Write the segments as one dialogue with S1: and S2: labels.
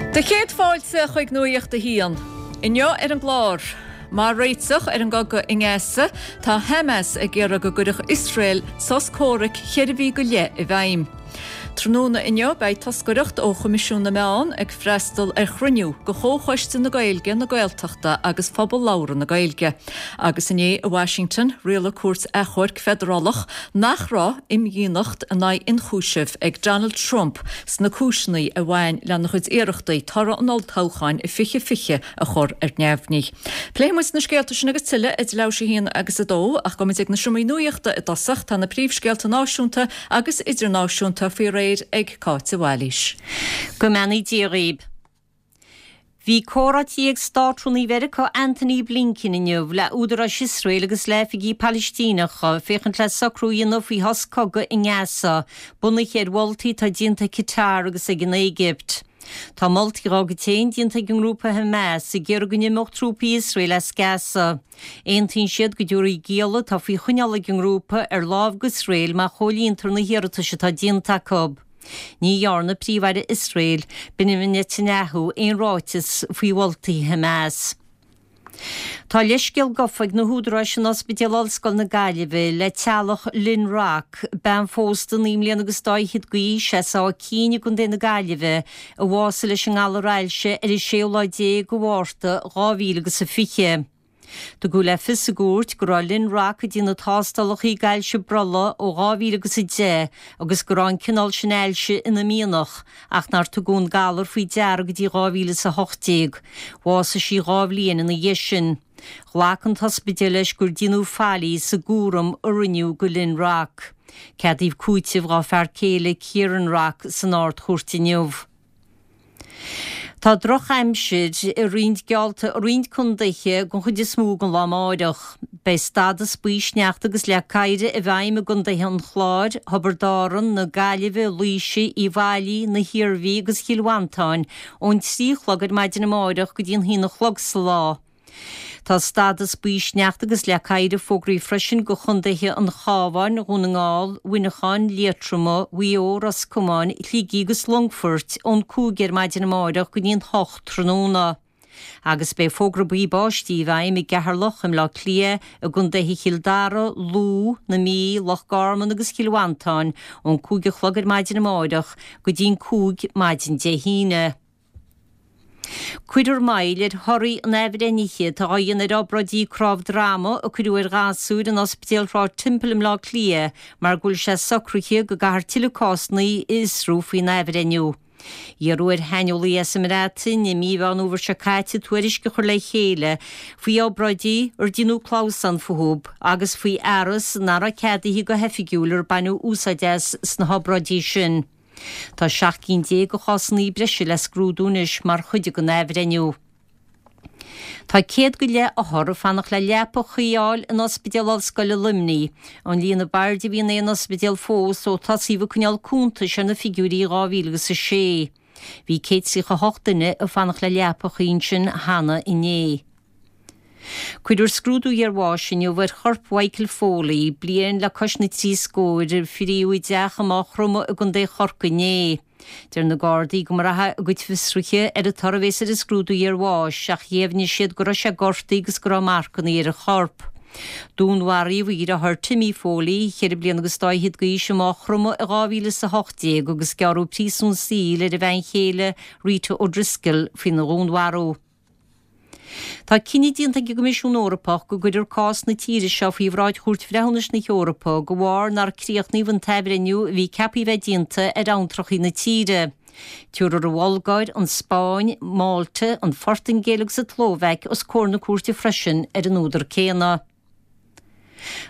S1: Do chéad fáilte chuig Nuacht a hAon. Inniu ar an gclár, Mar réiteach ar an gcogadh i nGaza, tá Hamas ag iarraidh go gcuirfeadh Iosrael sos comhraic cheithre mhí go leith i bhfeidhm. Tráthnóna inniu beidh toscaireacht ó Choimisiún na Meán ag freastal ar chruinniú de Chomhchoiste na Gaeilge, na Gaeltachta agus Phobal Labhartha na Gaeilge. Agus inné i Washington, rialaigh cúirt achomhairc feidearálach nach raibh imdhíonacht in aghaidh ionchúisimh ag Donald Trump sna cúiseanna a bhain lena chuid iarrachtaí toradh an olltoghcháin i 2020 a chur ar neamhní. Pléifidh muid na scéalta sin agus tuilleadh idir leathuair tar éis a haon agus a dó ach gabhfaidh muid ag na seomraí nuachta i dtosach. Tá na príomhscéalta náisiúnta agus idirnáisiúnta faoi réir ag Cáit de Bhailís.
S2: Go mbeannaí Dia dhaoib. Bhí comhráití ag Státrúnaí Mheiriceá Antony Blinken inniu le údaráis Iosrael agus le hoifigigh Palaistíneacha féachaint le socrú a dhéanamh faoi shos cogaidh i nGaza, bunaithe ar mholtaí atá déanta ag Qatar agus ag an Éigipt. Tá moltaí dá gcuid féin déanta ag an ngrúpa Hamas ag iarraidh go n-imeodh trúpaí Iosrael as Gaza. Aontaíonn siad go dtabharfaí gialla atá faoi choinneáil ag an ngrúpa ar láimh d'Iosrael má chomhlíontar na hiarratais atá déanta acu. Ní dhearna Príomh-Aire Iosrael, Benjamin Netanyahu, aon ráiteas faoi mholtaí Hamas. Tá leithscéal gafa ag na húdaráis in Ospidéal Ollscoile na Gaillimhe le teaghlach Lynn Rock, bean phósta 9 mbliana agus dá fhichead d'aois as Áth Cinn i gContae na Gaillimhe, a bhásaigh leis an ngalar ailse ar an séú lá déag de Mhárta 2020. Tugadh le fios i gcúirt go raibh Lynn Rock ag déanamh tástálacha d'ailse brollaigh ó 2010 agus go raibh an cineál sin ailse ina mianach ach nár tugadh an galar faoi deara go dtí 2018. Bhásaigh sí dhá bhliain ina dhiaidh sin. Ghlac an t-ospidéal leis gur déanadh faillí sa gcúram a rinneadh do Lynn Rock. Ceadaíodh cúiteamh dá fear céile Kieran Rock san Ard-Chúirt inniu. Tá drochaimsir i roinnt geallta i roinnt contaetha den chuid is mó den lá amáireach. Beidh stádas buí sneachta agus leac oighir i bhfeidhm i gcontaetha an Chláir, Thiobraid Árann, na Gaillimhe, Laoise, Uíbh Fhailí, na hIarmhí agus Chill Mhantáin ón 3 a chlog ar maidin amáireach go dtí an haon a chlog sa lá. Tá stádas buí sneachta agus leac oighir fógraithe freisin do chontaetha an Chabháin, Dhún na nGall, Mhuineacháin, Liatroma, Mhaigh Eo, Ros Comáin, Shligigh agus Longfoirt ón 5 ar maidin amárach go dtí an 8 tráthnóna. Agus beidh fógra buí báistí i bhfeidhm i gCeatharlach, i mBleá Cliath, i gcontaetha Chill Dara, Lú, na Mí, Loch Garman agus Chill Mhantáin ón 5 a chlog ar maidin amárach go dtí an 5 maidin Dé hAoine. Cuirfear moill ar thorthaí an athbhreithnithe atá á dhéanamh ar obráidí cnámh droma a cuireadh ar ghasúir in Ospidéal Shráid Temple i mBleá Cliath mar go bhfuil sé socraithe go gcaithfear tuilleadh cásanna a fhiosrú faoin athbhreithniú. Iarradh ar shaineolaí as an mBreatain i mí Mheán Fhómhair seo caite tuairisc a chur le chéile faoi obráidí ar déanadh clamhsán fúthu agus faoi fhearas nach raibh ceadaithe go hoifigiúil ar baineadh úsáid as sna hobráidí sin. Tá 17 cinn de chásanna breise le scrúdú anois mar chuid den athbhreithniú. Tá 100 go leith othar ag fanacht le leapa chuí a fháil in Ospidéal Ollscoile Luimnigh, an líon ab airde a bhí in aon ospidéal fós ó tosaíodh ag coinneáil cuntais ar na figiúirí i 2006. Bhí 138 duine ag fanacht le leapa chuí ansin cheana inné. Cuirfear scrúdú iarbháis inniu ar chorp Mhichael Foley, bliain le cois na dtrí scór, a fríodh i dteach i Maigh Chromtha i gContae Chorcaí inné. Deir na Gardaí go mbraithfidh a gcuid fiosruithe ar an toradh a bhéas ar an scrúdú iarbháis ach dheimhnigh siad go raibh sé gortaithe agus go raibh marcanna ar a chorp. Dúnmharaíodh a dheartháir Timmy Foley, cheithre bliana agus dá fhichead d'aois, i Maigh Chromtha i 2018 agus gearradh príosún saoil ar a bhean chéile Rita O'Driscoll faoina dhúnmharú. Tá cinneadh déanta ag an gCoimisiún Eorpach go gcuirfear cás na tíre seo faoi bhráid Chúirt Bhreithiúnais na hEorpa de bharr nár críochnaíodh an t-athbhreithniú a bhí ceaptha a bheith déanta ar abhantrachaí na tíre. Tabharfar an Bhulgáir, an Spáinn, Málta, an Phortaingéil agus an tSlóvaic os comhair na cúirte freisin ar an údar céanna.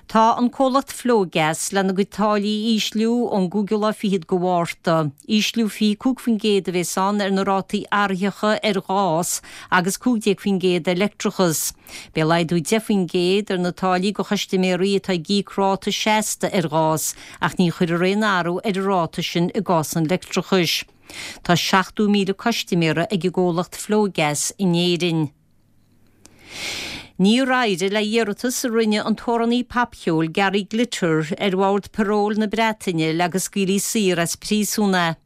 S2: Tá an comhlacht Flogas lena gcuid táillí a ísliú ón gcúigiú lá fichead de Mhárta. Ísliú 25% a bhéas ann ar na rátaí athraitheacha ar ghás agus 15% ar leictreachas. Beidh laghdú 10% ar na táillí do chustaiméirí atá ag íoc ráta seasta ar ghás ach ní chuirfear aon athrú ar an ráta sin i gcás an leictreachais. Tá 70,000 custaiméara ag an gcomhlacht Flogas in Éirinn. Níor éirigh le hiarratas a rinne an t-amhránaí popcheoil Gary Glitter ar Bhord Paróil na Breataine le go scaoilfí saor as príosún é.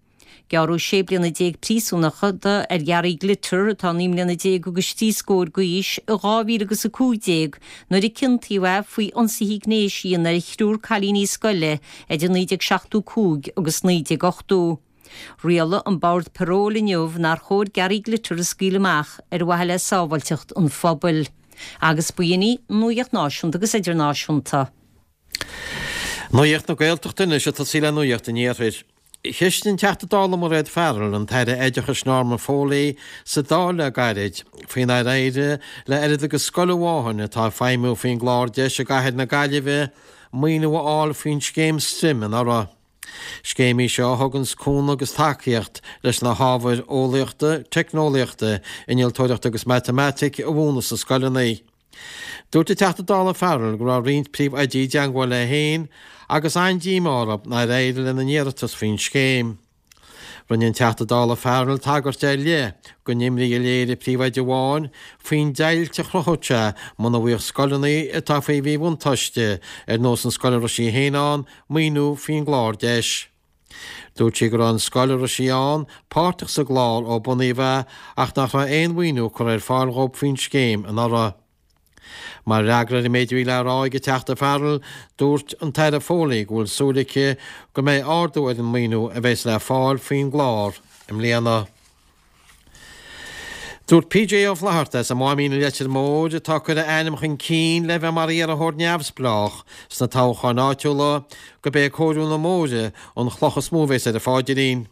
S2: Gearradh 16 bliana príosúnachta ar Gary Glitter, atá 19 mbliana agus 3 scór d'aois, i 2015 nuair a ciontaíodh é faoi ionsaithe gnéis a dhéanamh ar thriúr cailíní scoile idir 1975 agus 1980. Rialaigh an Bord Paróil inniu nár chóir Gary Glitter a scaoileadh amach ar mhaithe le sábháilteacht an phobail. Agus b'in í Nuacht Náisiúnta agus Idirnáisiúnta.
S3: Nuacht na Gaeltachta anois ag tosaí le Nuacht an Iarthair. Cheistigh an Teachta Dála Mairéad Farrell an tAire Oideachais Norma Foley sa Dáil le gairid faoi nár éirigh le oiread agus scoil amháin atá ag feidhmiú faoin gclár deis i gcathair na Gaillimhe maoiniú a fháil faoin scéim Stream anuraidh. Scéim í seo a thuganns cúnamh agus tacaíocht leis na hábhair eolaíochta, teicneolaíochta, innealtóireachta agus matamaitic a mhúineadh sna scoileanna. Dúirt an Teachta Dála Farrell go raibh roinnt príomhoidí i dteangmháil léi féin agus an-díomá orthu nár éirigh lena n-iarratas faoin scéim. Rinne an Teachta Dála Farrell tagairt ar leith don imní a léirigh príomhoide amháin faoin deighilt a chruthódh sé muna bhfaigheadh scoileanna atá faoi mhíbhuntáiste, ar nós an scoil a raibh sí féin ann, maoiniú faoin gclár deis. Dúirt sí go raibh an scoil a raibh sí ann páirteach sa gclár ó bunaíodh é ach nach raibh aon mhaoiniú curtha ar fáil dhóibh faoin scéim anuraidh. Mar fhreagra ar an méid a bhí le rá ag an Teachta Farrell, dúirt an tAire Foley go bhfuil súil aici go mbeidh ardú ar an maoiniú a bheas le fáil faoin gclár i mbliana. Dúirt PJ Ó Flatharta as an Máimín i Leitir Móir, atá ag cur a ainm chun cinn le bheith mar iarrthóir neamhspleách sna toghcháin áitiúla, gurb é cóiriú na mbóithre an chloch is mó a bheas ar a pháidrín.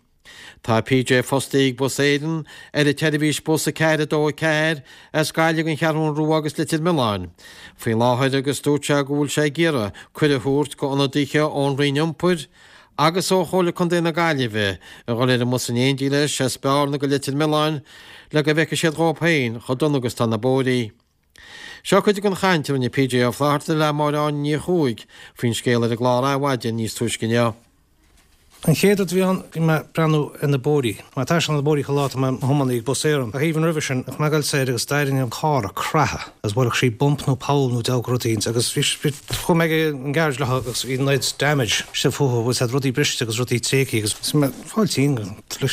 S3: Tá PJ fostaithe ag Bus Éireann ar an tseirbhís bus 4 2 4 as Gaillimh don Cheathrún Rua agus Leitir Mealláin faoi láthair agus dúirt sé go bhfuil sé ag iarraidh cuireadh a thabhairt go ionadaithe ón Roinn Iompair agus ó Chomhairle Contae na Gaillimhe a dhul ar an mbus in éindí leis as Bearna go Leitir Mealláin le go bhfeicfidh siad dhóibh féin chomh dona agus tá na bóithrí. Seo cuid den chaint a rinne PJ Ó Flatharta le Máire Áine Ní Chuaig faoin scéal ar an gclár Adhmhaidin níos túisce inniu.
S4: An chéad rud a bhí ann, bhí mé ag breathnú ar na bóithrí. Mar taisteal na bóithrí chuile lá tá mé i mo thiománaí ag Bus Éireann. Ach even roimhe sin, bheadh mé ag goil soir agus d'éirigh an carr ag creathadh agus bhuailfeadh sí bump nó poll nó deabhadh rud éicint agus bhí, bhí, chuaigh mé ag an garage leo agus bhí an oiread damage istigh fúthu, bhfuil siad rudaí briste agus rudaí tréigthe agus bhí mé ag fáil tinn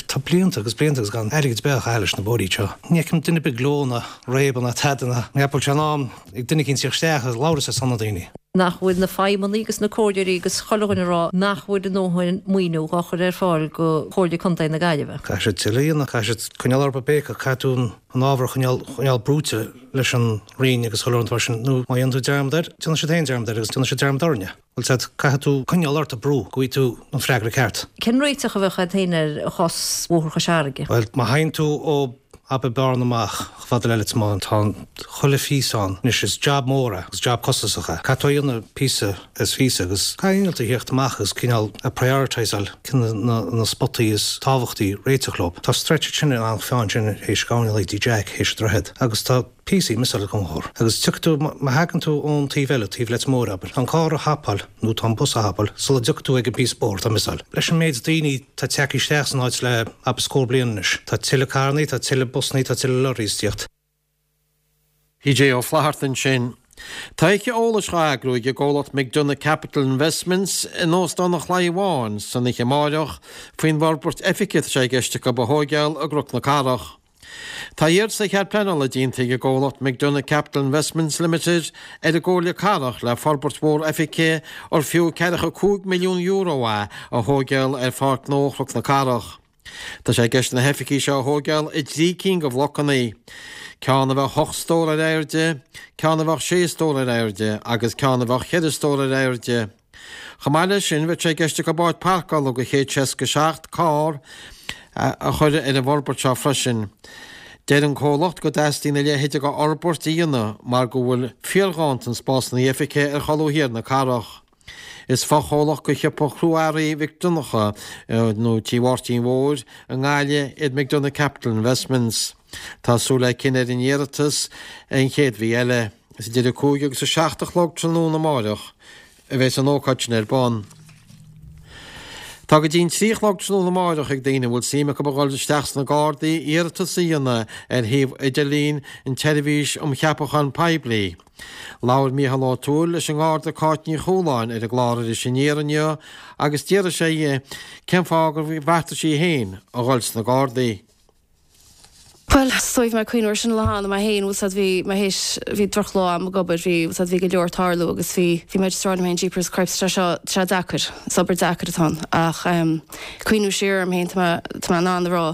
S4: tá blianta agus blianta agus gan airgead ar bith á chaitheamh leis na bóithrí seo. Ní fheicim duine ar bith ag gleo ná réabadh ná tada ná ní bhfuil sé in am ag duine éicint tíocht isteach agus labhairt ar son na daoine.
S5: nach bhfuil na feidhmeannaigh agus na comhairleoirí agus chuile dhuine ag rá nach bhfuil a ndóthain maoiniú dhá chur ar fáil go Chomhairle Contae na Gaillimhe.
S4: Caithfidh siad tuilleadh a dhéanamh, caithfidh siad coinneáil orthu ag béiceadh, caithfidh tú an ábhar a choinneáil, choinneáil brúite leis an Roinn agus chuile rud mar sin, nó má dhéanann tú dearmad air, déanfaidh siad féin dearmad air agus déanfaidh siad dearmad orainne. Bhuel sea, caithfidh tú coinneáil ort ag brú go bhfaighidh tú an freagra ceart.
S5: Cén réiteach a bheadh agat féin ar chás Bhóthar Chois Fharraige?
S4: Bhuel, má théann tú ó abair Bearna amach chomh fada le Leitir Mealláin, tá chuile phíosa ann. Anois is jab mór é agus jab costasach é. Caithfidh tú a dhéanamh píosa is phíosa agus caithfidh innealtóir a thíocht amach agus cineál a prioritiseáil cé na na spotaí is tábhachtaí réiteach leo. Tá stretch ansin in Eanach Mheáin sin théis gabhann le dtí Jack théis an droichead agus tá píosaí miseáil ag an gcór. Agus tiocfaidh tú, má thagann tú ón taobh eile, taobh Leitir Móir abair, tá an carr a thapáil nó tá an bus a thapáil sula dtiocfaidh tú ag an bpíosa bóthair atá miseáil. Leis an méid daoine atá tagtha isteach san áit le abair scór bliain anois, tá tuilleadh carrannaí, tá tuilleadh busannaí, tá tuilleadh lorries ag tíocht.
S3: PJ Ó Flatharta ansin. Tá oíche eolais dhá eagrú ag an gcomhlacht McDonagh Capital Investments in Óstán an Chlaí Bháin san oíche amáireach faoin bhforbairt oifige atá sé i gceist acu a thóigeáil i gCnoc na Cathrach. Tá iarratas ar chead pleanála déanta ag an gcomhlacht McDonagh Capital Investments Limited ar an gComhairle Cathrach le forbairt mhór oifige ar fiú €45 milliún é a thóigeáil ar Pháirc Ghnó Chnoc na Cathrach. Tá sé i gceist na hoifigí seo a thóigeáil i dtrí cinn de bhlocanna, ceann a bheadh 8 stór ar airde, ceann a bheadh 6 stór ar airde agus ceann a bheadh 4 stór ar airde. Chomh maith leis sin, bheadh sé i gceist acu áit páirceála do 167 carr a chur ar an bhforbairt seo freisin. Deir an comhlacht go dteastaíonn a leithéid de fhorbairt a dhéanamh mar go bhfuil fíorghanntan spásanna oifige ar cholbha thiar na cathrach. Is fochomhlacht de shiopa chrua-earraí Mhic Donncha, nó Tí Mháirtín Mhóir, i nGaillimh iad McDonagh Capital Investments. Tá súil le cinneadh ar an iarratas an chéad mhí eile. Is idir 5 agus 7 a chlog tráthnóna amáireach a bheas an ócáid sin ar bun. Tá go dtí an 3 a chlog tráthnóna amáireach ag daoine a bhfuil suim acu a dhul isteach sna Gardaí iarratas a dhéanamh ar shuíomh idirlín an tSeirbhís um Cheapacháin Poiblí. Labhair Mícheál Ó Tuathail leis an nGarda Cáit Ní Chualáin ar an gclár Iris Aniar inniu agus d'fhiafraigh sé dhi cén fáth gur bheartaigh sí féin a dhul sna Gardaí.
S6: Bhuel, is dóigh bhí mé ag cuimhniú ar sin an lá cheana mé féin, bhfuil 's a'd, bhí mé théis, bhí drochlá a'm ag obair, bhí, bhfuil 's a'd, bhí go leor ag tarlú agus bhí, bhí mé just ag rá liom féin, jeepers cripes, tá sé seo, tá sé deacair, is obair deacair atá ann ach em cuimhniú siar orm féin, tá mé, tá mé in ann a rá,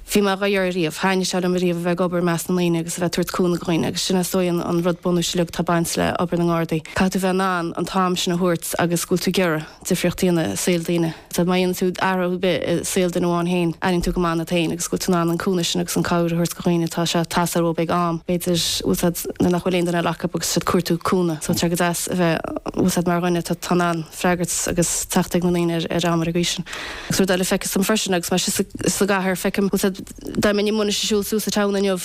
S6: bhí mé dhá iarraidh riamh, thaitnigh sé liom ariamh a bheith ag obair i measc na ndaoine agus a bheith ag tabhairt cúnamh do dhaoine agus sin is dóigh an, an rud bunúis uilig atá ag baint le obair na nGardaí. Caithfidh tú bheith in ann an t-am sin a thabhairt agus go bhfuil tú ag iarraidh difríocht a dhéanamh i saol daoine. Sea, má dhéanann tú athrú ar bith i saol duine amháin féin, airíonn tú go maith ionat féin agus go bhfuil tú in ann an cúnamh sin agus an cabhair a thabhairt do dhaoine. Tá sé ag teastáil uathu ag am, b'fhéidir, bhfuil 's a'd, nuair nach bhfuil aon duine eile acu agus siad ag cuartú cúnamh. So tá sé go deas a bheith, bhfuil 's a'd, mar dhuine atá in ann freagairt agus teacht ag na ndaoine ar ar am ar an gcaoi sin. Agus rud eile feictear dom freisin agus mé síos sa gcathair, feicim, bhfuil 's a'd, dá mbeinn amuigh anois ag siúl suas an town inniu,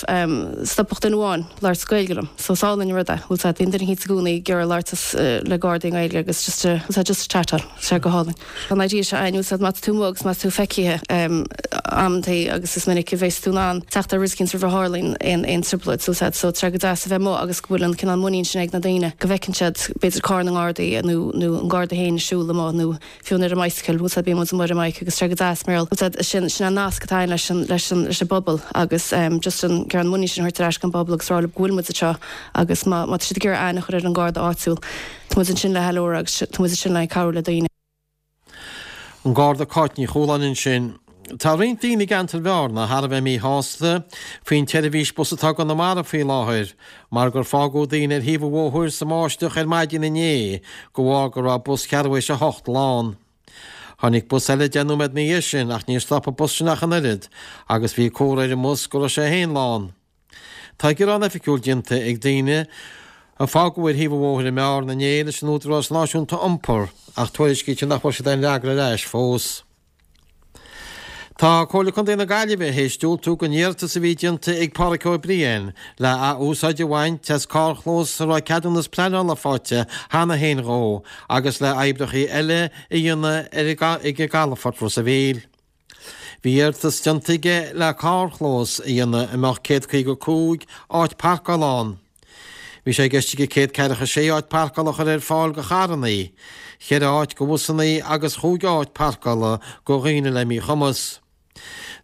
S6: stopfadh duine amháin labhairt Gaeilge liom. So is álainn an rud é, bhfuil 's a'd, bíonn duine eicínt i gcónaí ag iarraidh labhairt le Gardaí i nGaeilge agus just to, bhfuil 's a'd, just to chatáil, tá sé go hálainn. Tá an idea seo a'inn, bhfuil 's a'd, má tá tú amuigh agus má tá tú feicthe amantaí agus is minic a bheas tú in ann teacht ar rud eicínt roimh a tharlaíonn aon aon trioblóid, so bhfuil 's a'd, so tá sé go deas a bheith amuigh agus go bhfuil an cineál muinín sin ag na daoine go bhfeiceann siad b'fhéidir carr na nGardaí nó nó an Garda féin ag siúl amuigh nó fiú ar an mbicycle, bhfuil 's a'd, bíonn muid amuigh ar an mbike agus tá sé go deas mar bhfuil 's a'd, sin, sin an nasc atá a'inn leis an, leis an, leis an bpobal agus ehm just an, an muinín sin a thabhairt ar ais don bpobal agus rá leo go bhfuil muid anseo agus má, má tá siad ag iarraidh aithne a chur ar an Garda áitiúil, tá muid ansin le ceiliúradh agus tá muid ansin le cabhrú le daoine.
S3: An Garda Cáit Ní Chualáin ansin. Tá roinnt daoine i gceantar Bhearna thar a bheith míshásta faoin tseirbhís bus atá i gConamara faoi láthair mar gur fágadh daoine ar thaobh an bhóthair sa mbáisteach ar maidin inné de bharr go raibh bus cheathrú théis a hocht lán. Tháinig bus eile 10 nóiméad ina dhiaidh sin ach níor stop an bus sin ach an oiread agus bhí comhartha ar an mbus go raibh sé féin lán. Tá gearán oifigiúil déanta ag daoine a fágadh ar thaobh an bhóthair i mBearna inné leis an Údarás Náisiúnta Iompair ach tuairiscítear nach bhfuair siad aon fhreagra ar ais fós. Tá Comhairle Contae na Gaillimhe théis diúltú don iarratas a bhí déanta ag Páraic Ó Briain le ath-úsáid a bhaint as carrchlós a raibh ceadúnas pleanála faighte cheana féin dhó agus le oibreacha eile a dhéanamh ag an gcalafort Ros a' Mhíl. Bhí iarratas déanta aige le carrchlós a dhéanamh a mbeadh 155 áit parcála ann. Bhí sé i gceist aige 146 áit parcála a chur ar fáil do charrannaí, cheithre áit do bhusannaí agus chúig áit parcála do dhaoine le míchumas.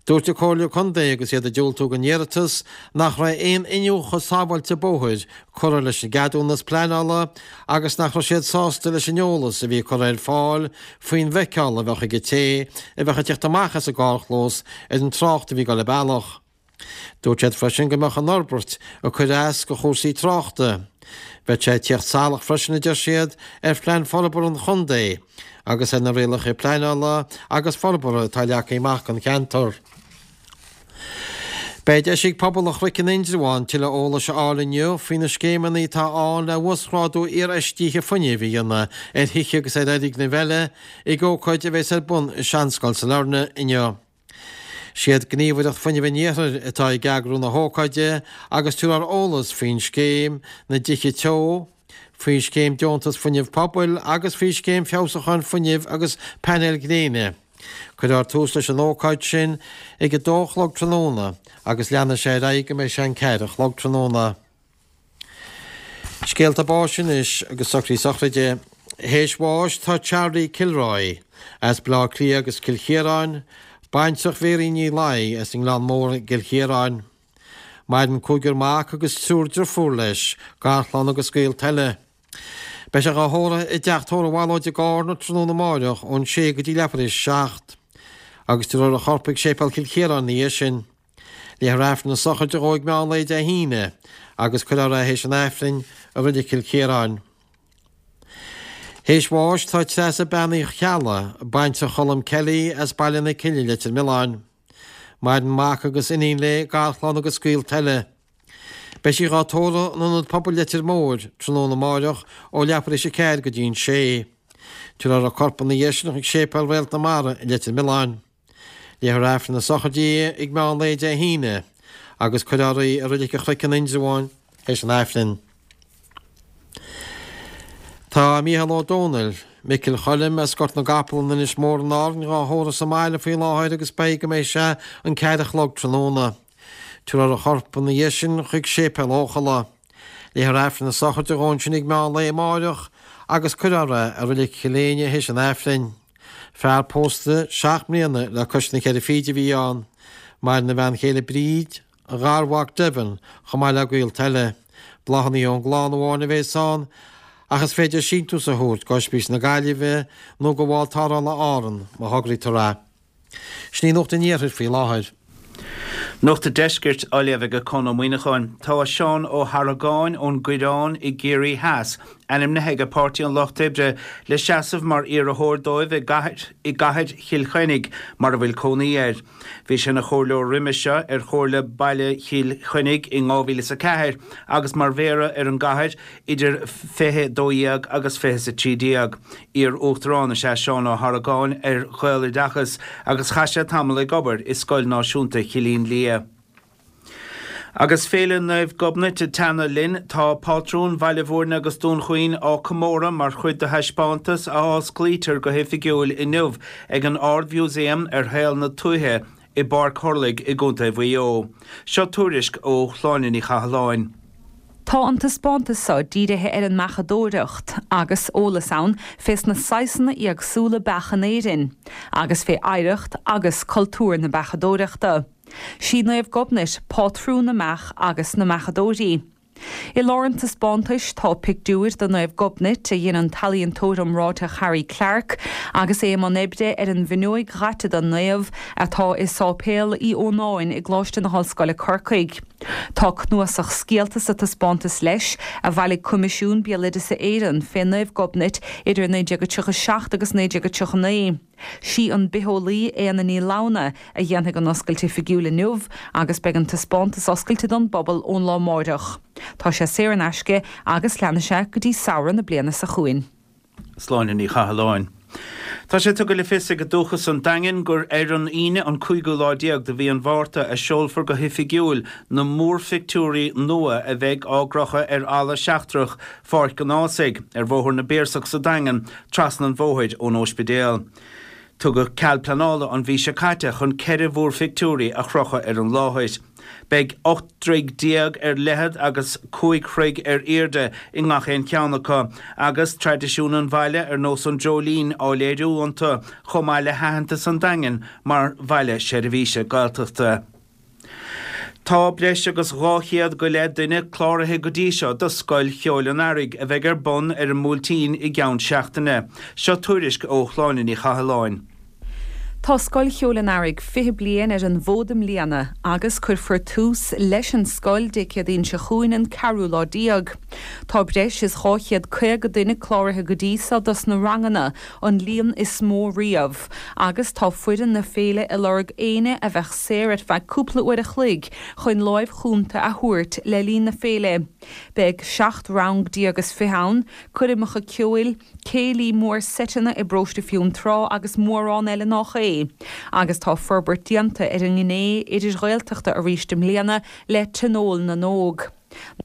S3: Dúirt an Comhairle Contae agus iad ag diúltú don iarratas nach raibh aon iniúchadh sábháilte bóthair curtha leis an gceadúnas pleanála agus nach raibh siad sásta leis an eolas a bhí curtha ar fáil faoin bhfeiceáil a bheadh ag an té a bheadh ag teacht amach as an gcarrchlós ar an trácht a bhí ag dul an bealach. Dúirt siad freisin go mbeadh an fhorbairt ag cur as do chúrsaí tráchta. Bheadh sé ag tíocht salach freisin, a deir siad, ar phlean forbartha an chontae agus ar na rialacha pleanála agus forbartha atá leagtha amach don cheantar. Beidh deis ag pobal an Chnoic in Indreabhán tuilleadh eolais a fháil inniu faoi na scéimeanna atá ann le uasghrádú iarfheistithe fuinnimh a dhéanamh ar thithe agus ar fhoirgnimh eile ag ócáid a bheas ar bun i Seanscoil Sailearna inniu. Siad Gníomhaireacht Fuinnimh an Iarthair atá ag eagrú na hócáide agus tabharfar eolas faoin scéim na dTithe Teo, faoi Scéim Deontas Fuinnimh Pobail agus faoi Scéim Feabhsúcháin Fuinnimh agus Painéil Ghréine. Cuirfear tús leis an ócáid sin ag a dó a chlog tráthnóna agus leanfaidh sé ar aghaidh go mbeidh sé an ceathair a chlog tráthnóna. Scéalta báis anois agus socruithe sochraide. Théis bháis tá Charlie Kilroy as Baile Átha Cliath agus Cill Chiaráin, baintreach Mhéirín Ní Laoi as an nGleann Mór i gCill Chiaráin. Maireann cúigear mac agus triúr driofúr leis, garchlann agus gaolta eile. Beidh sé dhá thórramh i dteach tórraimh Mhalóid i gCárna tráthnóna amáireach ón sé go dtí leathuair théis a seacht. Agus tabharfar a chorp ag Séipéal Chill Chiaráin ina dhiaidh sin. Léifear Aifreann na sochraide dhó ag meán lae Dé hAoine agus cuirfear é théis an Aifrinn i Reilig Chill Chiaráin. Théis bháis tá Treasa Bean Uí Cheallaigh, baintreach Cholm Kelly as Baile na Cille, Leitir Mealláin. Maireann mac agus iníon léi, garchlann agus gaolta eile. Beidh sí dhá tórramh in Ionad Pobail Leitir Móir tráthnóna amáireach ó leathuair théis a ceathair go dtí an sé. Tabharfar a corp ina dhiaidh sin chuig Séipéal Réalt na Mara i Leitir Mealláin. Léifear Aifreann na sochraide di ag meán lae Dé hAoine agus cuirfear í i Reilig an Chnoic in Indreabhán théis an Aifrinn. Tá Mícheál Ó Domhnaill, Micil Choilm as Gort na gCapall in Inis Mór in Árainn dhá thórramh sa mbaile faoi láthair agus beidh go mbeidh sé an ceathair a chlog tráthnóna. Tabharfar a chorp ina dhiaidh sin chuig Séipéal Eochalla. Léifear Aifreann na sochraide dhó ansin ag meán lae amáireach agus cuirfear é i Reilig Chill Éinne théis an Aifrinn. Fear pósta seacht mbliana le cois na ceithre fichid a bhí ann. Maireann a bhean chéile Bríd, a gharmhac Devin, chomh maith le gaolta eile. Bláthanna ón gclann amháin a bhéas ann, ach is féidir síntiús a thabhairt go Ospís na Gaillimhe nó go Bhall Tarrthála Árann má thograítear é. Sin í Nuacht an Iarthair faoi láthair.
S7: Nuacht an Deiscirt á léamh ag Conn Ó Muíneacháin. Tá Seán Ó hArgáin ón gCoireán i gCiarraí Theas ainmnithe ag Páirtí an Lucht Oibre le seasamh mar iarrthóir dóibh i gcathair i gcathair Chill Chainnigh mar a bhfuil cónaí air. Bhí sé ina chomhairleoir roimhe seo ar Chomhairle Baile Chill Chainnigh in 2004 agus mar mhéara ar an gcathair idir 2012 agus 2013. Iar-Uachtarán is ea Seán Ó hArgáin ar Ghaeloideachas agus chaith sé tamall ag obair i Scoil Náisiúnta Chillín Liath. Agus Féile Naomh Gobnait ag teannadh linn, tá pátrún Bhaile Bhúirne agus Dún Chaoin á comóradh mar chuid de thaispeántas a osclaítear go hoifigiúil inniu ag an Ard-Mhúsaem ar shaol na tuaithe i bPáirc Thurlaigh i gContae Mhaigh Eo. Seo tuairisc ó Shláine Ní Chathalláin.
S8: Tá an taispeántas seo dírithe ar an mbeachadóireacht, agus eolas ann fés na saghsanna éagsúla beach in Éirinn, agus fé oidhreacht agus cultúr na beachadóireachta. Sí Naomh Gobnait pátrún na mbeach agus na mbeachadóirí. I lár an taispeántais tá pictiúir de Naomh Gobnait a dhein an t-ealaíontóir iomráiteach Harry Clarke agus é i mbun oibre ar an bhfuinneoig dhaite den naomh atá i Sáipéal Uí Ónáin i gColáiste na hOllscoile Corcaigh. Tá cnuasach scéalta sa taispeántas leis a bhailigh Coimisiún Béaloideasa Éireann fé Naomh Gobnait idir 1937 agus 1939. Sí an bitheolaí Éanna Ní Lamhna a dhéanfaidh an oscailt oifigiúil inniu agus beidh an taispeántas oscailte don bpobal ón lá amáireach. Tá sé saor in aisce agus leanfaidh sé go dtí samhradh na bliana seo chugainn.
S7: Sláine Ní Chathalláin. Tá sé tugtha le fios ag Dúchas an Daingin gur ar an Aoine an cúigiú lá déag de mhí an Mhárta a seolfar go hoifigiúil na múrphictiúirí nua a bheidh á gcrochadh ar fhalla seachtrach Pháirc an Ághasaigh, ar Bhóthar na bPiarsach sa Daingean, trasna an bhóthair ón óispidéal. Tugadh cead pleanála an mhí seo caite chun 4 mhúrphictiúirí a chrochadh ar an láthair. Beidh 18 dtroigh ar leithead agus 5 throigh ar airde i ngach aon cheann acu, agus traidisiún an bhaile ar nós an dreoilín á léiriú iontu, chomh maith le haitheantas an Daingin mar bhaile seirbhíse Gaeltachta. Tá breis agus 200 go leith duine cláraithe go dtí seo do Scoil Cheoil an Earraigh a bheidh ar bun ar an mBuailtín i gceann seachtaine. Seo tuairisc ó Shláine Ní Chathalláin.
S8: Tá Scoil Cheoil an Earraigh 20 bliain ar an bhfód i mbliana agus cuirfear tús leis an scoil Dé Céadaoin seo chugainn an ceathrú lá déag. Tá breis is 250 duine cláraithe go dtí seo dos na ranganna, an líon is mó riamh, agus tá foireann na féile ag lorg éinne a bheadh saor ar feadh cúpla uair a chloig chun láimh chúnta a thabhairt le linn na féile. Beidh 17 rang is fiche ann, coirmeacha ceoil, céilí mór seiteanna i bParóiste Fionntrá agus mórán eile nách é. Agus tá forbairt déanta ar an ngné idir-Ghaeltachta arís i mbliana le Tionól na nÓg.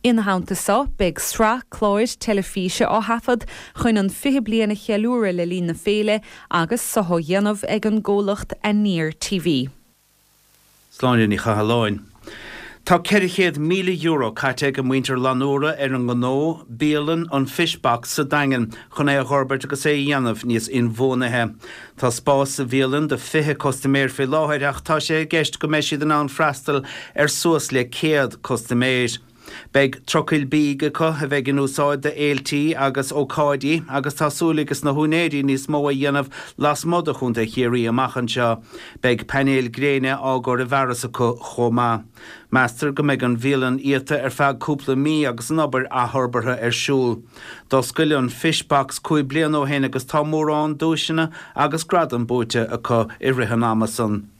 S8: Ina theannta so, beidh sraith cláir teilifíse á thaifead chun an 20 bliain a cheiliúradh le linn na féile agus so á dhéanamh ag an gcomhlacht Aniar TV.
S7: Sláine Ní Chathalláin. Tá €400,000 caite ag muintir Fhlannúra ar an ngnó, bialann an Fish Box sa Daingean chun é a dh'fhorbairt agus é a dhéanamh níos inbhuanaithe. Tá spás sa bhialann do 20 custaiméir faoi láthair ach tá sé i gceist go mbeidh siad in ann freastal ar suas le 100 custaiméir. Beidh trucail bídh acu a bheidh in úsáid do fhéiltí agus ócáidí agus tá súil ages na húinéirí níos mó a dhéanamh lasmuigh de Chontae Chiarraí amach anseo. Beidh painéil gréine á gcur i bhfearas acu chomh maith. Meastar go mbeidh an bhialann iata ar feadh cúpla mí agus an obair athfhorbartha ar siúl. D'oscail an Fish Box 5 bliana ó shin agus tá mórán duaiseanna agus gradam buaite acu i rith an ama san.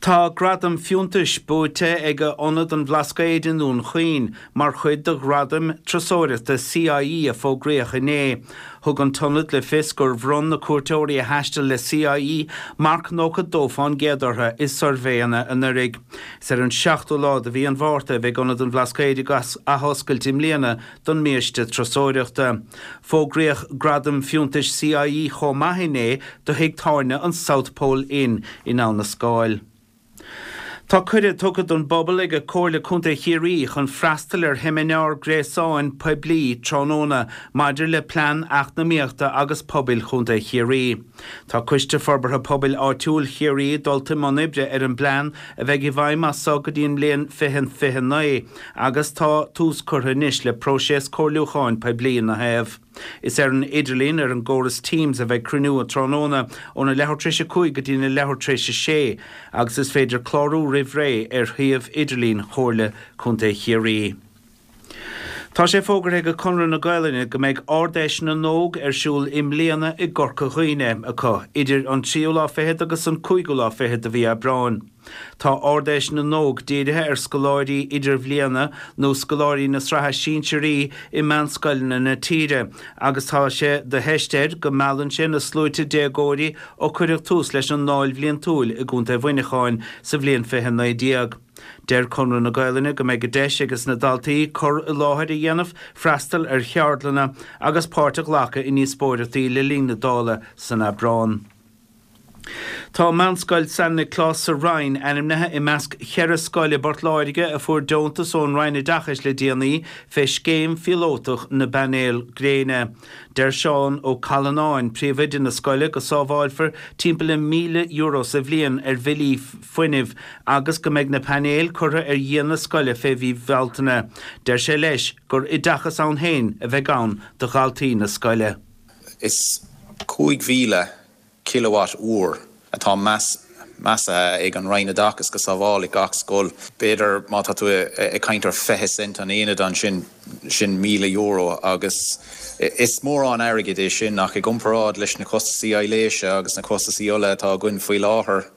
S7: Tá gradam fiúntais buaite ag Ionad an Bhlascaoid i nDún Chaoin mar chuid de Ghradaim Turasóireachta CIE a fógraíodh inné. Thug an t-ionad le fios gur bhronn na cuairteoirí a thaistil le CIE marc 92% orthu i suirbhéanna anuraidh. Is ar an seachtú lá de mhí an Mhárta a bheidh Ionad an Bhlascaoid ag athoscailt i mbliana don mbiaiste turasóireachta. Fógraíodh Gradam Fiúntais CIE chomh maith inné do thigh tábhairne an South Pole Inn in Abha na Scáil. Tá cuireadh tugtha don bpobal ag Comhairle Contae Chiarraí chun freastal ar sheimineár gréasáin poiblí tráthnóna maidir le Plean Eacnamaíochta agus Pobail Chontae Chiarraí. Tá Coiste Forbartha Pobail Áitiúil Chiarraí dulta i mbun oibre ar an bplean a bheidh i bhfeidhm as so go dtí an mbliain 2029 agus tá tús curtha anois le próiseas comhairliúcháin poiblí ina thaobh. Is ar an idirlíon ar an gcóras Teams a bheidh cruinniú an tráthnóna óna leathuair tar éis a 5 go dtína leathuair tar éis a 6 agus is féidir clárú roimh ré ar shuíomh idirlín Chomhairle Contae Chiarraí. Tá sé fógartha ag Conradh na Gaolainne go mbeidh Ard-Fheis na nÓg ar siúl i mbliana i gCorca Dhuibhne acu idir an tríú lá fichead agus an cúigiú lá fichead de mhí Aibreáin. Tá Ard-Fheis na nÓg dírithe ar scoláirí idirbhliana nó scoláirí na sraithe sinsearaí i meánscoileanna na tíre agus tá sé de theist air go meallann sé na sluaite déagóirí ó cuireadh tús leis an ndáil bhliantúil i gContae Mhuineacháin sa bhliain 2019. Deir Conradh na Gaolainne go mbeidh deis ages na daltaí cur i láthair a dhéanamh, freastal ar cheardlanna agus páirt a ghlacadh i ndíospóireachtaí le linn na Dála san Aibreán. Tá Meánscoil San Nioclás sa Rinn ainmnithe i measc cheithre scoil i bPort Láirge a fuair deontas ón Roinn Oideachais le déanaí fé scéim phíolótach na bpainéal gréine. Deir Seán Ó Callanáin, príomhoide na scoile, go sábháilfear timpeall le €1,000 sa bhliain ar bhillí fuinnimh agus go mbeidh na painéil curtha ar dhíon na scoile fé mhí Bhealtaine. Deir sé leis gur oideachas ann féin a bheidh ann do dhaltaí na scoile.
S9: Is 5,000 kilowatt uair atá measaithe ag an Roinn Oideachais go sábhálfaidh gach scoil. B'fhéidir má tá tú ag caint ar 20 cent an aonad ansin, sin €1,000 agus is mórán airgid é sin ach i gcomparáid leis na costasaí aibhléise agus na costasaí ola atá againn faoi láthair,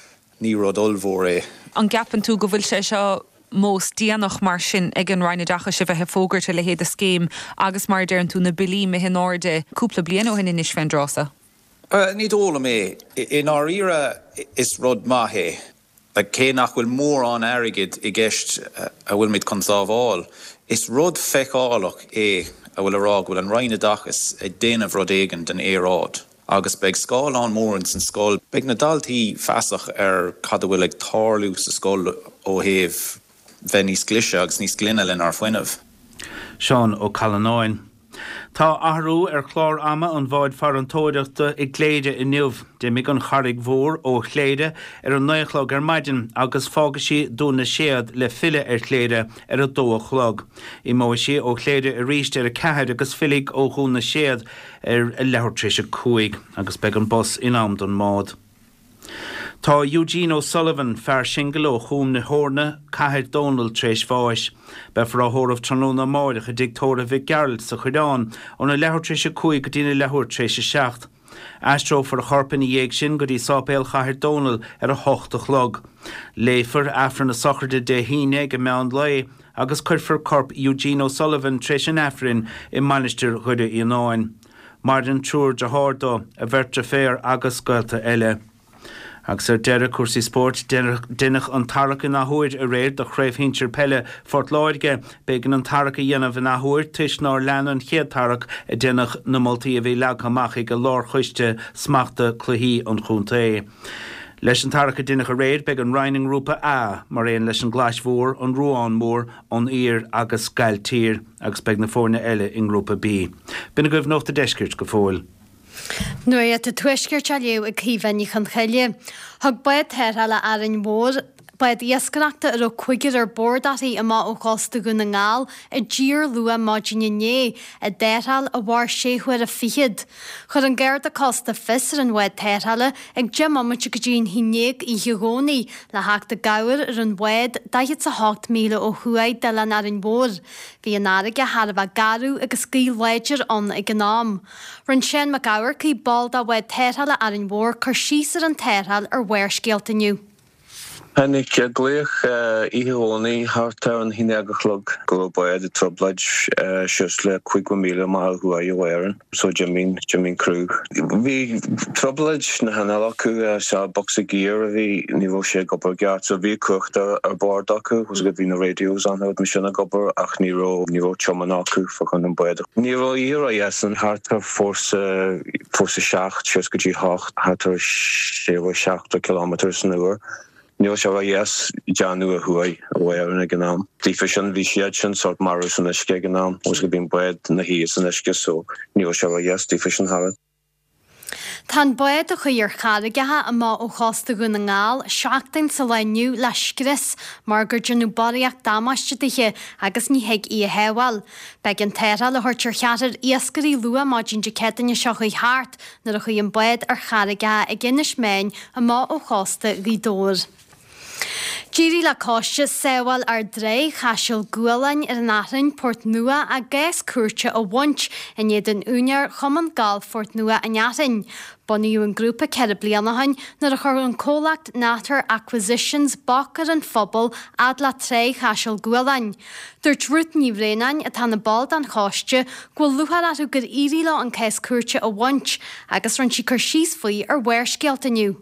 S9: ní rud ollmhór é.
S8: An gceapann tú go bhfuil sé seo mós déanach mar sin ag an Roinn Oideachais a bheith ag fógairt a leithéid de scéim agus mar a deireann tú na billí imithe in airde cúpla bliain ó shin anois fén dtráth so?
S9: Ní dóigh liom é. I ndáiríre is rud maith é. Cé nach bhfuil mórán airgid i gceist a bhfuilimid chun sábháil, is rud feiceálach é a bhfuil a rá go bhfuil an Roinn Oideachais ag déanamh rud éigin don aeráid. Agus beidh scáileán mór ins an scoil. Beidh na daltaí feasach ar cad a bhfuil ag tarlú sa scoil ó thaobh bheith níos glaise agus níos glaine lenár fuinneamh.
S7: Seán Ó Callanáin. Tá athrú ar chlár ama an bháid farantóireachta i gCléire inniu. D'imigh an Charraig Mhór ó Chléire ar a 9 a chlog ar maidin agus fágfaidh sí Dún na Séad le filleadh ar Chléire ar a 2 a chlog. Imeoidh sí ó Chléire arís ar a 4 agus fillfidh ó Dhún na Séad ar a leathuair tar éis a 5 agus beidh an bus in am don mbád. Tá Eugene O'Sullivan, fear singil ó Chúm na hEorna, Cathair Dónall tar éis bháis. Beifear á thórramh tráthnóna amáireach i dTigh Tórraimh Mhic Gearailt sa Choireán óna leathuair tar éis a 5 go dtína leathuair tar éis a 7. Aistreofar a chorp ina dhiaidh sin go dtí Sáipéal Chathair Dónall ar a hocht a chlog. Léifear Aifreann na sochraide Dé hAoine ag an meán lae agus cuirfear corp Eugene O'Sullivan tar éis an Aifrinn i Mainistir Dhoire Fhíonáin. Maireann triúr dearthár dó, a bheirt deirféar agus gaolta eile. Agus ar deireadh, cúrsaí spóirt, deineadh an tarrac in athuair aréir do Chraobh Shinsir Peile Phort Láirge. B'éigean an tarrac a dhéanamh in athuair toisc nár lean an chéad tarrac a deineadh na moltaí a bhí leagtha amach ag Lárchoiste Smachta Cluichí an chontae. Leis an tarrac a deineadh aréir, beidh an Rinn i nGrúpa A, mar aon leis an gClais Mhór, an Ruán Mór, An Aoir agus Gailltír agus beidh na foirne eile i nGrúpa B. B'in agaibh Nuacht a' Deiscirt go fóill.
S10: Nuacht an Tuaiscirt á léamh ag Caoimhe Ní Chonchoille. Thug bád tarrthála Árainn Mhór, bád iascaireachta a raibh cúigear ar bord uirthi amach ó chósta Dhún na nGall i dtír luath maidin inné, i dtarrtháil a mhair sé huaire fichead. Chuir an Garda Cósta fios ar an bhád tarrthála ag 10 mbomaite go dtí an haon ndéag oíche Dhomhnaigh le theacht i gcabhair ar an bhád 48 míle ó thuaidh d'oileán Árainn Mhór. Bhí an fharraige thar a bheith garbh agus gaoth láidir ann ag an am. Rinne Seán Mac Eamharcaigh, ball de bhád tarrthála Árainn Mhór, cur síos ar an tarrtháil ar Bharrscéalta inniu.
S11: Tháinig glaoch oíche Dhomhnaigh thart ar an haon déag a chlog go raibh bád i dtrioblóid suas le 50 míle amach ó thuaidh ó Árainn so d'imigh, d'imigh criú. Bhí trioblóid sna hinnill acu, sea bocsa giar a bhí, ní raibh sé ag obair i gceart so bhí cumhacht ar bord acu, bhí na radios ann mar sin ag obair ach ní raibh, ní raibh tiomáint acu fá choinne an bád. Ní raibh oíche ródheas thart ar fórsa, fórsa 7 suas go dtí 8, thart ar 60 70 kilometres san uair. Ní raibh sé ró-dheas déanamh ó thuaidh ó Éirinn ag an am. Daofa sin bhí siad sin sórt marbh san uisce ag an am agus go bhí an bád 'na shuí san uisce so ní raibh sé ró-dheas daofa sin thar.
S10: Tá an bád a chuaigh ar charraigeacha amach ó chósta Dhún na nGall seachtain sa lá inniu le scrios mar gur déanadh barraíocht damáiste dithe agus ní thig í a shábháil. B'éigean tarrtháil a thabhairt ar cheathrar iascairí luath maidin Dé Céadaoine seo chuaigh thart nuair a chuaigh an bád ar charraigeacha ag Inis Meáin amach ó chósta Ghaoth Dobhair. D'éirigh le coiste Sábháil Ár dTrá Chaiseal Gualáin ar an Athrainn, Port Nua, a gcás cúirte a bhaint in éadan úinéir Chumann Gailf Phort Nua an Athrainn. Bunaíodh an grúpa 4 bliana ó shin nuair a chuir an comhlacht Natter Acquisitions bac ar an phobal fhad le Trá Chaiseal Gualáin. Dúirt Ruth Ní Bhraonáin, atá ina ball den choiste, go bhfuil lúcháir orthu gur éirigh leo an cás cúirte a bhaint agus rinne sí cur síos faoi ar Bharrscéalta inniu.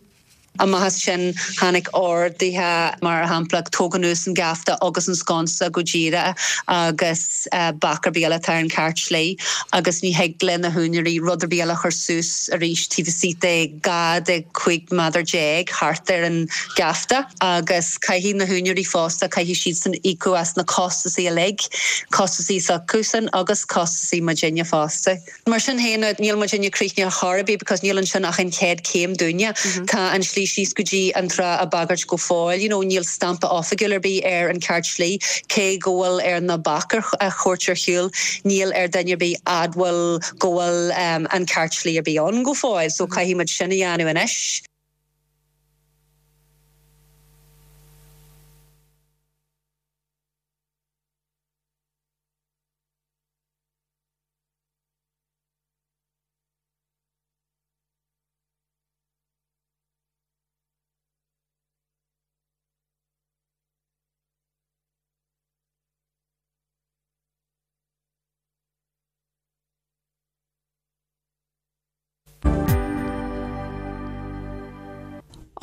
S12: Amach as sin tháinig orduithe, mar shampla, tóg anuas an geafta agus an sconsa go díreach agus bac ar bith eile atá ar an cheart slí agus ní thig le na húinéirí rud ar bith eile a chur suas arís taobh istigh de 12 de 15 méadar thart ar an gheafta agus caithfidh na húinéirí fosta, caithfidh siadsan íocadh as na costasaí uilig, costasaí s'acusan agus costasaí muidinne fosta. Mar sin féin, níl muidinne críochnaithe chor ar bith because níl ansin ach an chéad chéim dúinne. Tá an slí síos go dtí an trá á bagairt go fóill, you know, níl stampa oifigiúil ar bith ar an ceart slí, cé go bhfuil ar na bac a thabhairt ar shiúl, níl ar duine ar bith admháil go bhfuil an ceart slí ar bith ann go fóill, so caithfidh muid sin a dhéanamh anois.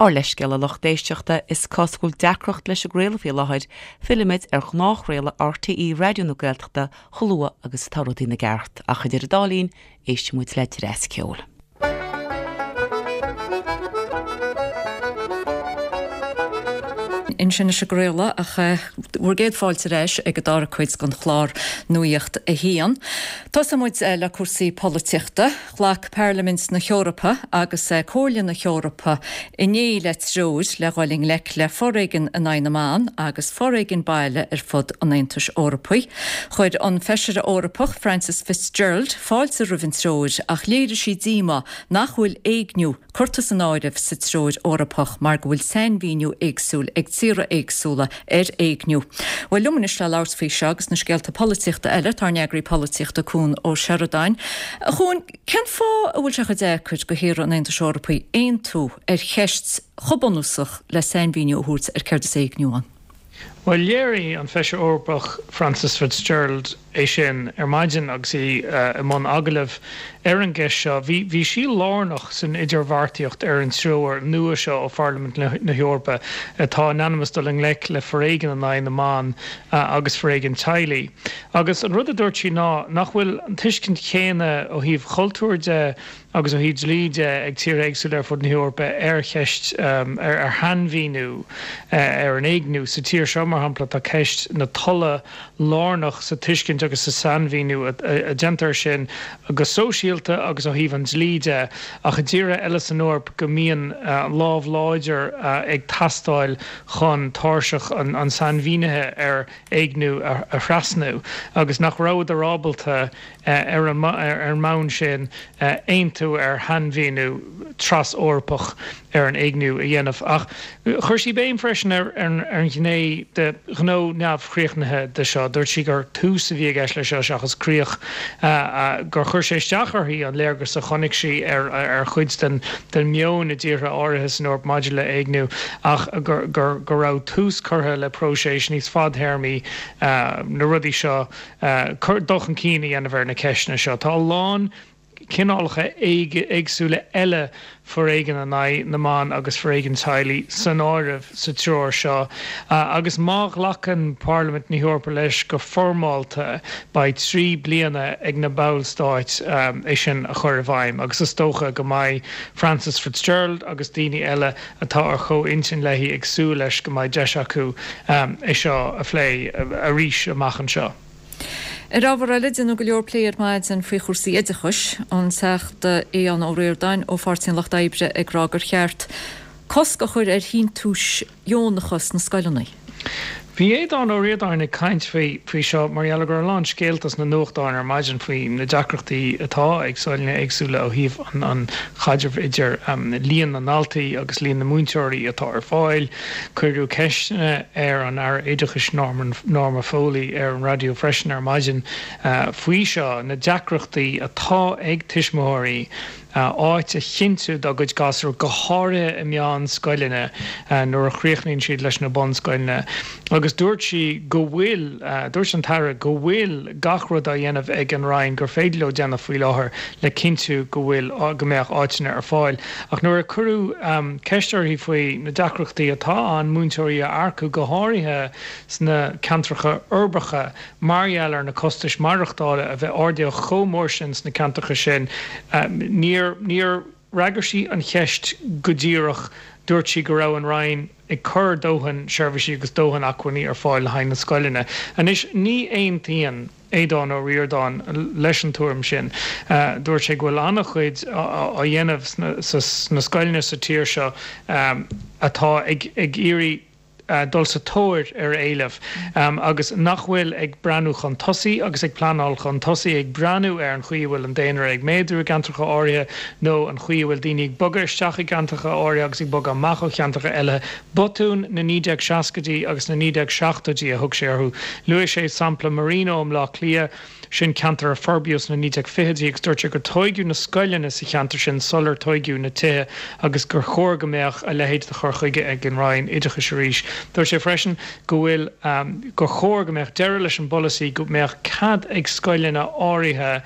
S13: Ár leithscéal a lucht éisteachta, is cosúil go bhfuil deacracht leis an gcraoladh faoi láthair, fillfimid ar ghnáthchraoladh RTÉ Raidió na Gaeltachta chomh luath agus atá rudaí ina gceart, ach idir an dá linn, éistfidh muid le dreas ceoil.
S1: Ansin leis an gcraoladh ach bhur gcéad fáilte ar ais ag an dara cuid den chlár Nuacht a hAon. Tosóidh muid le cúrsaí polaitíochta. Ghlac Pairlimint na hEorpa agus Comhairle na hEorpa inné le treoir le dhul i ngleic le foréigean in aghaidh na mban agus foréigean baile ar fud an Aontais Eorpaigh. Chuir an Feisire Eorpach Frances Fitzgerald fáilte roimh an treoir ach léirigh sí díomá nach bhfuil éigniú curtha san áireamh sa treoir Eorpach mar go bhfuil sainmhíniú éagsúil ag tíortha éagsúla ar éigniú. Bhuel, liom anois le labhairt faoi seo agus na scéalta polaitíochta eile, tá ár n-eagraí polaitíochta Cuan Ó Seireadáin. A Chuain, cén fáth a bhfuil sé chomh deacair do thíortha an Aontais Eorpaigh aontú ar cheist chomh bunúsach le sainmhíniú a thabhairt ar céard is éigniú ann?
S14: Bhuel, léirigh an Feisire Eorpach Frances Fitzgerald é sin ar maidin agus í i mbun agallaimh ar an gceist seo. Bhí bhí sí lárnach san idirbheartaíocht ar an treoir nua seo ó Pharlaimint na hEorpa atá in ainm is dul i ngleic le foréigean in aghaidh na mban agus foréigean teaghlaigh. Agus an rud a dúirt sí ná nach bhfuil an tuiscint chéanna ó thaobh chultúir de agus ó thaobh dlí de ag tíortha éagsúla ar fud na hEorpa ar cheist, ar shainmhíniú ar an éigniú. Sa tír seo, mar shampla, tá ceist na tola lárnach sa tuiscint agus sa sainmhíniú a déantar air sin go sóisialta agus ó thaobh an dlí de, ach i dtíortha eile san Eoraip go mbíonn lámh láidir ag teastáil chun tairseach an sainmhínithe ar éigniú a thrasnú agus nach rabhadar ábalta ar an mbonn sin, aontú ar shainmhíniú tras-Eorpach ar an éigniú a dhéanamh. Ach chuir sí béim freisin ar an ghné de ghnó neamhchríochnaithe de seo. Dúirt sí gur tús a bhí i gceist leis seo seachas críoch, gur chuir sé isteach uirthi an léargas a chonaic sí ar chuid den meon i dtíortha áirithe san Eoraip maidir le héigniú ach go raibh tús curtha le próiseas níos fadthéarmaí na rudaí seo dul chun cinn a dhéanamh ar na ceisteanna seo. Tá a lán. cineálacha éagsúla eile foréigin in aghaidh na mban agus foréigean teaghlaigh san áireamh sa treoir seo agus má ghlacann Parlaimint na hEorpa leis go foirmeálta beidh 3 bliana ag na ballstáit é sin a chur i bhfeidhm agus is dócha go mbeidh Frances Fitzgerald agus daoine eile atá ar chomh-intinn léi ag súil leis go mbeidh deis acu é seo a phlé arís amach anseo.
S1: Ar ábhar eile, déanadh go leor plé ar maidin faoi chúrsaí oideachais, an Teachta Aodhán Ó Ríordáin ó Pháirtí an Lucht Oibre ag rá gur cheart cosc a chur ar shíntiúis dheonacha sna scoileanna.
S14: Bhí Aodhán Ó Ríordáin ag caint faoi seo mar gheall go raibh a lán scéalta sna nuachtáin ar maidin faoi na deacrachtaí atá ag scoileanna éagsúla ó thaobh an chaidrimh idir líon na ndaltaí agus líon na múinteoirí atá ar fáil. Cuireadh ceisteanna ar an Aire Oideachais Norma Foley ar an raidió freisin ar maidin faoi seo, na deacrachtaí atá ag tuismitheoirí áit a chinntiú dá gcuid gasúr, go háirithe i meánscoileanna nuair a chríochnaíonn siad leis na bunscoileanna. Agus dúirt sí go bhfuil, dúirt an tAire go bhfuil gach rud á dhéanamh ag an Roinn gur féidir leo déanamh faoi láthair le cinntiú go bhfuil, go mbeadh áiteanna ar fáil. Ach nuair a cuireadh ceist uirthi faoi na deacrachtaí atá ann múinteoirí a earcú, go háirithe sna ceantracha uirbeacha, mar gheall ar na costais maireachtála a bheith ardaithe chomh mór sin sna ceantracha sin, níor níor fhreagair sí an cheist go díreach. Dúirt sí go raibh an Roinn ag cur dóthain seirbhísí agus dóthain acmhainní ar fáil le haghaidh na scoileanna. Anois, ní aontaíonn. Aodhán Ó Ríordáin leis an tuairim sin. Dúirt sé go bhfuil an-chuid á dhéanamh sna scoileanna sa tír seo atá ag iarraidh dul sa tóir ar éileamh agus nach bhfuil ag breathnú chun tosaigh agus ag pleanáil chun tosaigh, ag breathnú ar an chaoi a bhfuil an daonra ag méadú i gceantracha áirithe nó an chaoi a bhfuil daoine ag bogadh isteach i gceantracha áirithe agus ag bogadh amach ó cheantracha eile. Botúin na 1960idí agus na 1970idí a thug sé orthu. Luaigh sé sampla Marino i mBleá Cliath, sin ceantar a forbraíodh sna 1920idí agus dúirt sé gur tóigeadh na scoileanna sa cheantar sin sular tóigeadh na tithe agus gur chóir go mbeadh a leithéid de chur chuige ag an Roinn Oideachais arís. Dúirt sé freisin go bhfuil gur chóir go mbeadh deireadh leis an bpolasaí go mbeadh cead ag scoileanna áirithe